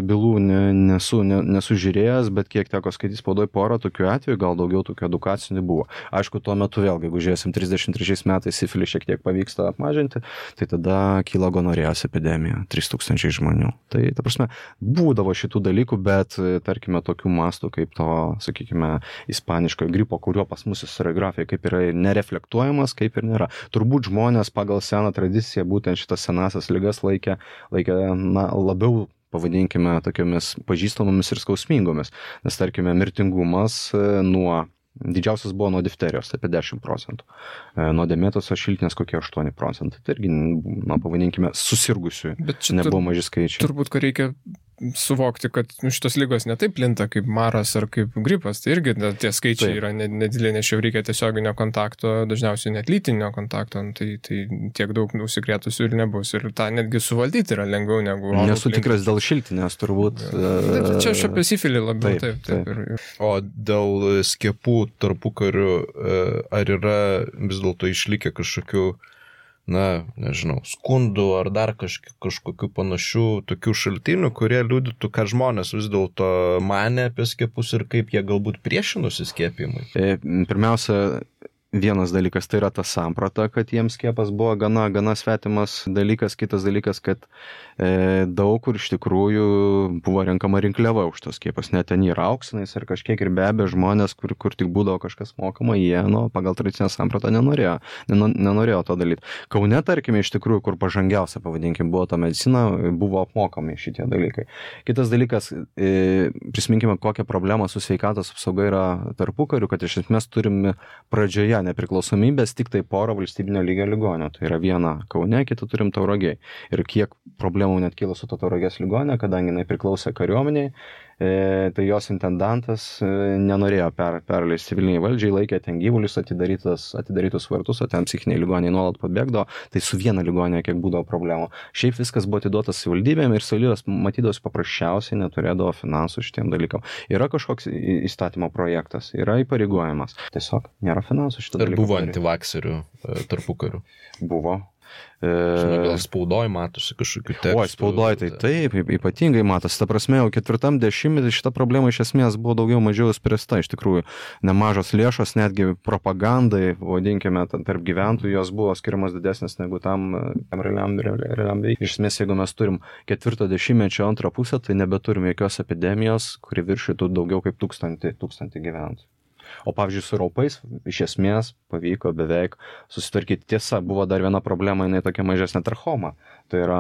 bylų nesu žiūrėjęs, bet kiek teko skaityti spaudoj porą tokių atvejų, gal daugiau tokių edukacinių buvo. Aišku, tuo metu vėlgi, jeigu žiūrėsim 33 metais sifilį šiek tiek pavyksta apmažinti, tai tada kyla gonorėjos epidemija, 3000 žmonių. Tai, ta prasme, būdavo šitų dalykų, bet, tarkime, tokių mastų kaip to, sakykime, ispaniškojo gripo, kurio pas mus istoriografija kaip yra nereflektuojamas, kaip ir nėra. Turbūt žmonės pagal seną tradiciją būtent šitas senasias ligas laikė labiau, pavadinkime, tokiamis pažįstamomis ir skausmingomis. Nes, tarkime, mirtingumas didžiausias buvo nuo difterijos, apie 10%. Nuo dėmėtosios šiltinės kokie 8%. Tai irgi, pavadinkime, susirgusių. Nebuvo maži skaičiai. Turbūt, kad reikia suvokti, kad šitos lygos netaip plinta kaip maras ar kaip gripas, tai irgi tie skaičiai yra nedideli, nes jau reikia tiesioginio kontakto, dažniausiai net lytinio kontakto, tai tiek daug užsikrėtusių ir nebus. Ir tą netgi suvaldyti yra lengviau negu... Nesu tikras dėl šiltinės, turbūt. Čia aš apie sifilį labiau. Taip. O dėl skiepų tarpukariu, ar yra vis dėlto išlikę kažkokių nežinau, skundų ar dar kažkokių panašių tokių šaltinių, kurie liudytų, ką žmonės vis dėlto manė apie skiepus ir kaip jie galbūt priešinosi skiepimui? Pirmiausia, vienas dalykas tai yra ta samprata, kad jiems skiepas buvo gana svetimas dalykas, kitas dalykas, kad daug kur iš tikrųjų buvo renkama rinkliava už tos skiepus, net ten yra auksinais ir kažkiek ir be abejo žmonės, kur tik būdavo kažkas mokama, jie pagal tradicinę sampratą nenorėjo to daryti. Kaune, tarkime, iš tikrųjų, kur pažangiausia, pavadinkim, buvo ta medicina, buvo apmokami šitie dalykai. Kitas dalykas, prisiminkime, kokią problemą su sveikatos apsauga yra tarpukariu, kad iš esmės turime pradžioje nepriklausomybės tik tai porą valstybinio lygio ligonių. Tai yra viena Kaune, kitą turim Tauragėj. Ir kiek problemų net kilo su to Tauragės ligonė, kadangi jinai priklausė kariuomeniai, tai jos intendantas nenorėjo perleisti civiliniai valdžiai, laikė ten gyvulius atidarytus vartus, o ten psichiniai ligoniai nuolat pabėgdavo, tai su viena ligonė kiek būdavo problemų. Šiaip viskas buvo atiduotas savivaldybėm ir savivaldybės matydavos paprasčiausiai neturėdavo finansų šitiem dalykam. Yra kažkoks įstatymo projektas, yra įpareigojimas. Tiesiog nėra finansų šitą dalyką. Ir buvo antivakserių tarpukarių? Buvo. Žinau, gal spaudoj matosi kažkokių tekstų. O, spaudoj tai taip, ypatingai matosi. Ta prasme, jau 4 dešimtmetį šita problema iš esmės buvo daugiau mažiau spręsta. Iš tikrųjų, nemažos lėšos, netgi propagandai, vadinkime, tarp gyventojų, jos buvo skiriamas didesnės negu tam realiam veiksmui. Iš esmės, jeigu mes turim 4 dešimtmečio antrą pusę, tai nebeturim jokios epidemijos, kuri viršytų daugiau kaip 1000 gyventojų. O pavyzdžiui, su raupais iš esmės pavyko beveik susitvarkyti. Tiesa, buvo dar viena problema, jinai tokia mažesnė trachoma. Tai yra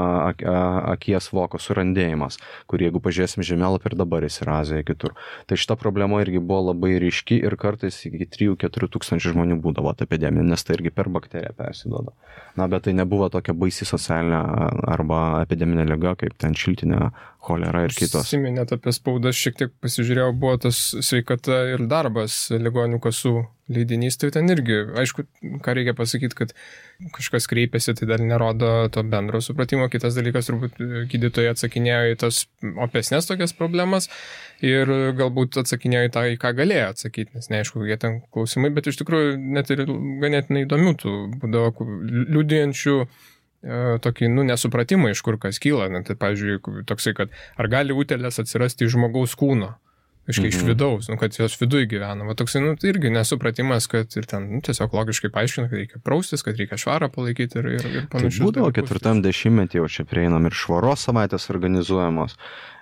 akies voko surandėjimas, kurį jeigu pažiūrėsim žemėlapį ir dabar jis yra Azijoje kitur. Tai šita problema irgi buvo labai ryški ir kartais iki 3-4 tūkstančių žmonių būdavo ta epidemija, nes tai irgi per bakteriją persiduoda. Bet tai nebuvo tokia baisi socialinė arba epideminė liga, kaip ten šiltinė, cholera ir kitos. Siminėt apie spaudą, šiek tiek pasižiūrėjau, buvo tas sveikata ir darbas ligonių kasų leidinys, tai ten irgi, aišku, ką reikia pasakyti, kad kažkas kreipėsi, tai dar nerodo to bendro supratimo. Kitas dalykas, turbūt gydytojai atsakinėjo į tas opesnės tokias problemas ir galbūt atsakinėjo į tą, į ką galėjo atsakyti, nes neaišku, jie ten klausimai, bet iš tikrųjų net ir ganėtinai įdomių tų būdavo liudijančių tokį, nesupratimą, iš kur kas kyla. Tai, pavyzdžiui, toksai, kad ar gali utėlės atsirasti iš žmogaus kūno? Iš vidaus, kad jos viduje gyvena. Toksai, tai irgi nesupratimas, kad ir ten tiesiog logiškai paaiškina, kad reikia praustis, kad reikia švarą palaikyti ir panašiai. Tai būdavo 4 dešimtmetį jau čia prieinam ir švaros savaitės organizuojamos.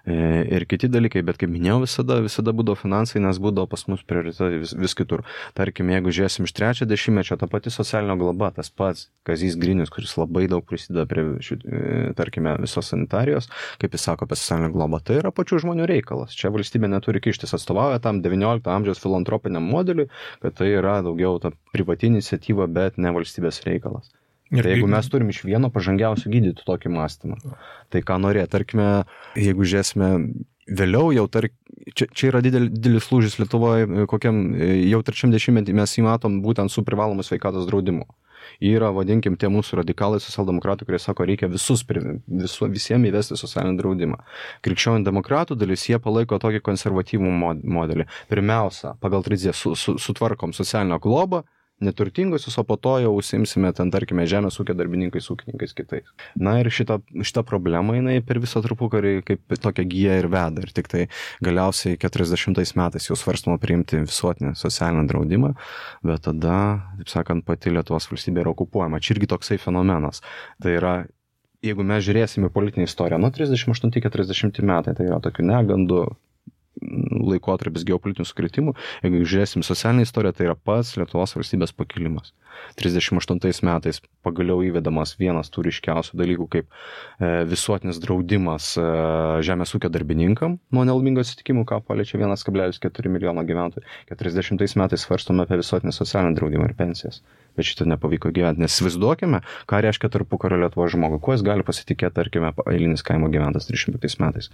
Ir kiti dalykai, bet kaip minėjau, visada būdavo finansai, nes būdavo pas mus prioritetai vis kitur. Tarkim, jeigu žiūrėsim iš 3 dešimtmečio, ta pati socialinio globa, tas pats Kazys Grinius, kuris labai daug prisideda prie, tarkime, visos sanitarijos, kaip jis sako apie socialinę globą, tai yra pačių žmonių reikalas. Čia valstybė neturi kištis, atstovauja tam 19 amžiaus filantropiniam modeliui, kad tai yra daugiau ta privati iniciatyva, bet ne valstybės reikalas. Tai jeigu mes turim iš vieno pažangiausių gydytų tokį mąstymą, tai ką norėt, tarkime, jeigu žiūrėsime vėliau, jau čia yra didelis lūžis Lietuvoje, kokiam jau 3 dešimtmetį mes jį matom būtent su privalomu sveikatos draudimu. Yra, vadinkim, tie mūsų radikalai socialdemokratai, kurie sako, reikia visiems įvesti socialinį draudimą. Krikščionių demokratų dalis, jie palaiko tokį konservatyvų modelį. Pirmiausia, pagal tradiciją sutvarkom socialinę globą, neturtingusius, o po to jau užsiimsime ten, tarkime, žemės ūkio darbininkais, ūkininkais kitais. Na ir šita problema, jinai per visą tarpukarį kaip tokia gyja ir veda. Ir tik tai galiausiai 40 metais jau svarstama priimti visuotinį socialinį draudimą, bet tada, taip sakant, pati Lietuvos valstybė yra okupuojama. Čia irgi toksai fenomenas. Tai yra, jeigu mes žiūrėsime politinę istoriją, nuo 38-40 metai, tai yra tokių negandų laikotarpis geopolitinių sukretimų. Jeigu žiūrėsim socialinę istoriją, tai yra pats Lietuvos valstybės pakilimas. 38 metais pagaliau įvedamas vienas tų ryškiausių dalykų kaip visuotinis draudimas žemės ūkio darbininkam nuo nelaimingo atsitikimų, ką paliečia 1,4 milijono gyventojų. 40 metais svarstome apie visuotinį socialinį draudimą ir pensijas. Bet šitą nepavyko gyventi. Nes įsivaizduokime, ką reiškia tarpukario Lietuvos žmogui. Kuo jis gali pasitikėti, tarkime, eilinis kaimo gyventas 35 metais.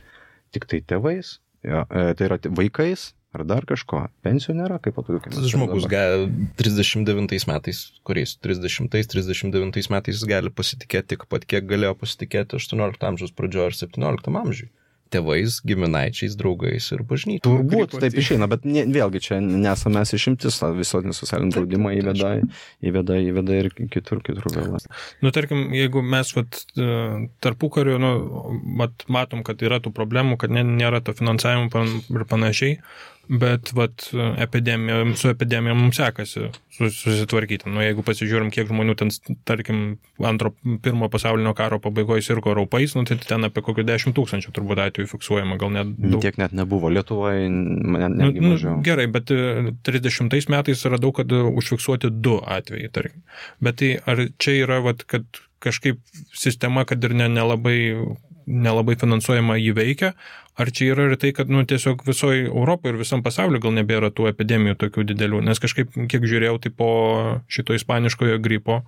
Tik tai tėvais. Ja, tai yra vaikais ar dar kažko. Pensijų nėra, kaip patogiu. Žmogus 39 metais, kuriais 30-39 metais gali pasitikėti tik pat, kiek galėjo pasitikėti 18 amžiaus pradžioje ar 17 amžiui. Tėvais, giminaičiais, draugais ir bažnyčiai. Turbūt taip išeina, bet vėlgi čia nesame mes išimtis, visuotinį socialinį draudimą įveda ir kitur vėl. Nu, tarkim, jeigu mes tarpukariu, matom, kad yra tų problemų, kad nėra to finansavimo ir panašiai, bet su epidemija mums sekasi susitvarkyti. Nu, jeigu pasižiūrim, kiek žmonių ten, tarkim, pirmo pasaulinio karo pabaigoje sirgo raupais, nu, tai ten apie kokių 10 000 turbūt atvejų fiksuojama, gal net daug. Tiek net nebuvo. Lietuvoje netgi mažiau. Gerai, bet 30 metais radau, kad užfiksuoti 2 atvejai, tarkim. Bet tai ar čia yra, kad kažkaip sistema, kad ir nelabai finansuojama jį veikia, ar čia yra ir tai, kad tiesiog visoje Europoje ir visam pasauliu gal nebėra tų epidemijų tokių didelių, nes kažkaip, kiek žiūrėjau, tai po šito ispaniškojo gripo,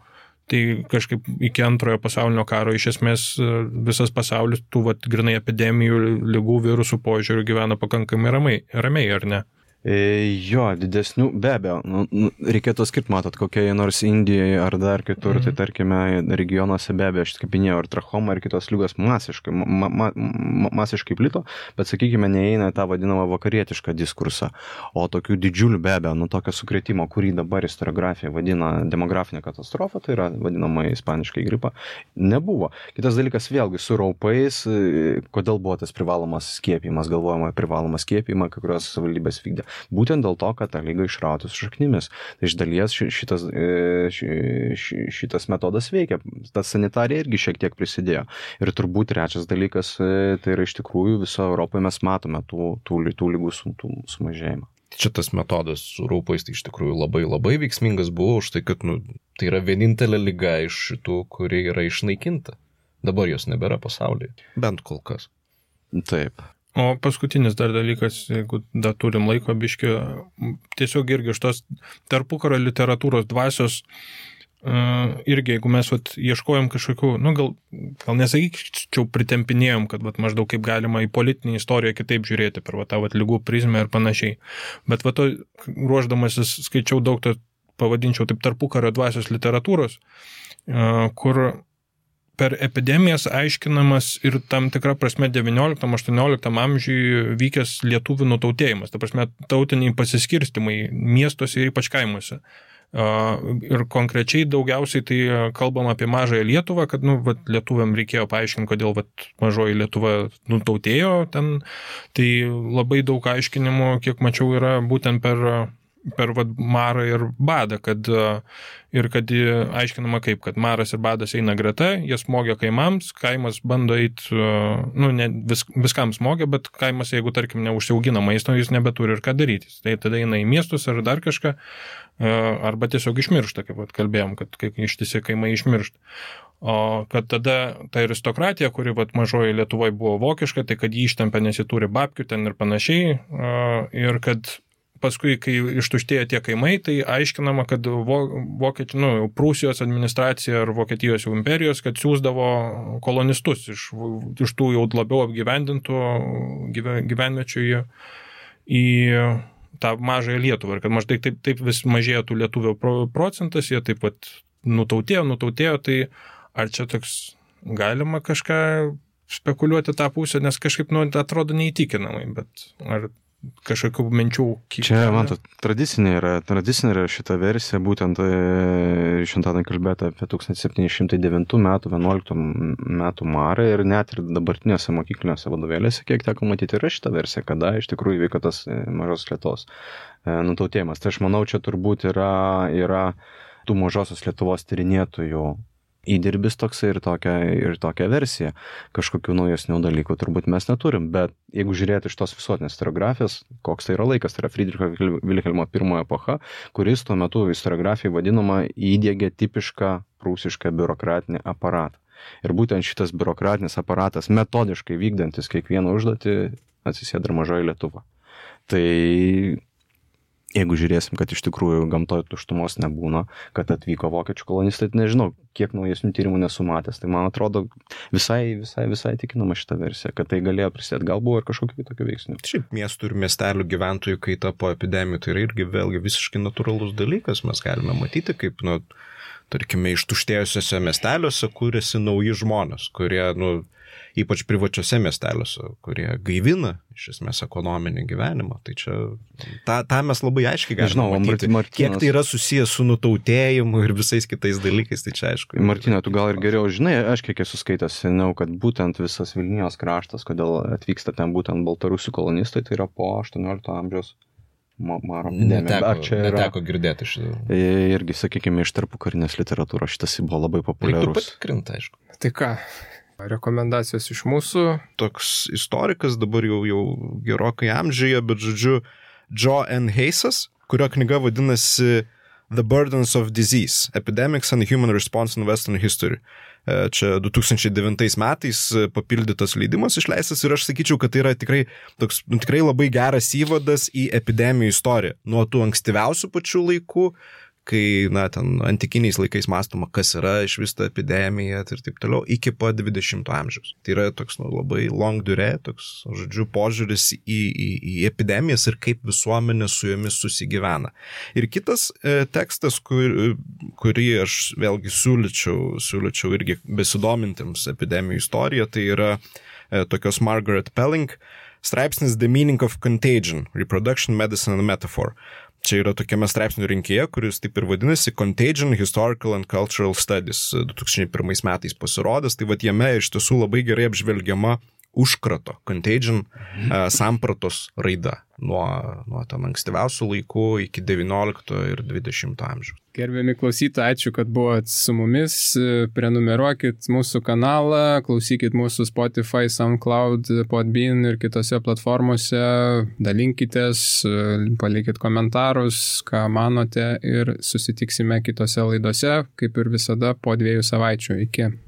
tai kažkaip iki antrojo pasaulinio karo iš esmės visas pasaulis tų grinai epidemijų, ligų, virusų požiūrių gyvena pakankamai ramiai, ar ne? Jo, didesnių, be abejo, reikėtų skirti, matot, kokie nors Indijoje ar dar kitur, tai tarkime, regionuose be abejo, aš kaip minėjau, ir trachoma, ir kitos lygos masiškai plito, bet, sakykime, neįeina tą vadinamą vakarietišką diskursą, o tokių didžiulių be abejo, tokio sukrėtimo, kurį dabar istoriografija vadina demografinė katastrofa, tai yra vadinama ispaniškai gripa, nebuvo. Kitas dalykas, vėlgi, su raupais, kodėl buvo tas privalomas skiepijimas, galvojama privalomą skiepijimą, kai kurios savivaldybės vykdė. Būtent dėl to, kad tą lygą išrauti su šaknimis. Tai iš dalies šitas metodas veikia. Tas sanitarija irgi šiek tiek prisidėjo. Ir turbūt trečias dalykas, tai yra iš tikrųjų viso Europoje mes matome tų lygų sumažėjimą. Čia tas metodas su raupais tai iš tikrųjų labai labai veiksmingas buvo už tai, kad tai yra vienintelė liga iš šitų, kuri yra išnaikinta. Dabar jos nebėra pasaulyje. Bent kol kas. Taip. O paskutinis dar dalykas, jeigu dar turim laiko biškį, tiesiog irgi iš tos tarpukario literatūros dvasios, irgi jeigu mes ieškojom kažkokių, gal nesakyčiau pritempinėjom, kad maždaug kaip galima į politinį istoriją kitaip žiūrėti per tą lygų prizmę ir panašiai. Bet ruošdamasis skaičiau daug, pavadinčiau taip tarpukario dvasios literatūros, kur per epidemijas aiškinamas ir tam tikra prasme 19-18 amžiuje vykęs lietuvių nutautėjimas, ta prasme tautiniai pasiskirstimai miestuose ir ypač kaimuose. Ir konkrečiai daugiausiai tai kalbam apie mažąją Lietuvą, kad lietuviam reikėjo paaiškinti, kodėl mažoji Lietuva nutautėjo ten. Tai labai daug aiškinimų, kiek mačiau, yra būtent per marą ir badą, kad aiškinama kaip, kad maras ir badas eina greta, jie smogia kaimams, kaimas bando eiti, viskam smogia, bet kaimas, jeigu, tarkim, neužsiaugina maisto, jis nebeturi ir ką daryti. Tai tada eina į miestus ar dar kažką, arba tiesiog išmiršta, kaip kalbėjom, kad ištisi kaimai išmiršta. O kad tada ta aristokratija, kuri mažoji Lietuvoje buvo vokiška, tai kad jį ištempia, nes jį turi babkių ten ir panašiai, ir kad paskui, kai ištuštėjo tie kaimai, tai aiškinama, kad Prūsijos administracija ar Vokietijos imperijos, kad siūsdavo kolonistus iš tų jau labiau apgyvendintų gyvenviečių į tą mažąją Lietuvą. Ir kad maždaug taip vis mažėjo tų lietuvių procentas, jie taip nutautėjo, tai ar čia toks galima kažką spekuliuoti tą pusę, nes kažkaip, atrodo neįtikinamai, bet ar kažkokių minčių kiek. Čia, matot, tradicinė yra šita versija, būtent šiandien kalbėta apie 1709 metų, 11 metų marą ir net ir dabartinėse mokyklinėse vadovėlėse, kiek teko matyti, yra šita versija, kada iš tikrųjų vyko tas Mažos Lietuvos nutautėjimas. Tai aš manau, čia turbūt yra tų Mažosios Lietuvos tyrinėtojų įdirbis toksai ir tokia versija. Kažkokių naujesnių dalykų turbūt mes neturim, bet jeigu žiūrėti iš tos visuotinės istoriografijos, koks tai yra laikas, tai yra Friedricho Vilhelmo I epocha, kuris tuo metu istoriografijai vadinama įdiegė tipišką prūsišką biurokratinį aparatą. Ir būtent šitas biurokratinis aparatas metodiškai vykdantis kiekvieną užduotį atsisėda ir Mažoji Lietuva. Tai jeigu žiūrėsim, kad iš tikrųjų gamtoje tuštumos nebūna, kad atvyko vokiečių kolonistai, tai nežinau, kiek naujesnių tyrimų nesumatęs. Tai man atrodo visai tikinama šitą versiją, kad tai galėjo prisidėti. Gal buvo ir kažkokių kitokių veiksnių. Šiaip miestų ir miestelių gyventojų kaita po epidemijų tai yra irgi vėlgi visiškai natūralus dalykas. Mes galime matyti, kaip, tarkime, ištuštėjusiuose miesteliuose kūrėsi nauji žmonės, kurie, ypač privačiuose miesteliuose, kurie gaivina iš esmės ekonominį gyvenimą. Tai čia, tą mes labai aiškiai galime matyti. Kiek tai yra susijęs su nutautėjimu ir visais kitais dalykais, tai čia aišku. Martina, tu gal ir geriau žinai, aš kiek esu skaitęs seniau, kad būtent visas Vilnijos kraštas, kodėl atvyksta ten būtent baltarusių kolonistai, tai yra po 18 amžiaus maro epidemija. Neteko girdėti šitą. Irgi, sakykime, iš tarpukarinės literatūros šitas buvo labai populiarus. Reiktų patikrinti, aišku. Tai ką? Rekomendacijos iš mūsų. Toks istorikas, dabar jau gerokai amžiuje, bet žodžiu, Joe N. Hayesas, kurio knyga vadinasi The Burdens of Disease, Epidemics and Human Response in Western History. Čia 2009 metais papildytas leidimas išleistas ir aš sakyčiau, kad tai yra tikrai labai geras įvadas į epidemijų istoriją. Nuo tų ankstyviausių pačių laikų, kai, ten antikiniais laikais mąstoma, kas yra iš vis ta epidemija ir taip toliau, iki pat 20 amžiaus. Tai yra toks labai long durée, toks, žodžiu, požiūris į epidemijas ir kaip visuomenė su jomis susigyvena. Ir kitas tekstas, kurį aš vėlgi siūlyčiau irgi besidomintiems epidemijų istoriją, tai yra tokios Margaret Pelling straipsnis The Meaning of Contagion, Reproduction, Medicine and Metaphor. Čia yra tokiame straipsnių rinkėje, kuris taip ir vadinasi Contagion, Historical and Cultural Studies, 2001 metais pasirodęs. Tai jame iš tiesų labai gerai apžvelgiama užkrato, contagion sampratos raida nuo ten ankstyviausių laikų iki 19 ir 20 amžiaus. Gerbiami klausytojai, ačiū, kad buvot su mumis. Prenumeruokit mūsų kanalą, klausykit mūsų Spotify, SoundCloud, Podbean ir kitose platformose. Dalinkitės, palikit komentarus, ką manote ir susitiksime kitose laidose, kaip ir visada, po 2 savaičių. Iki.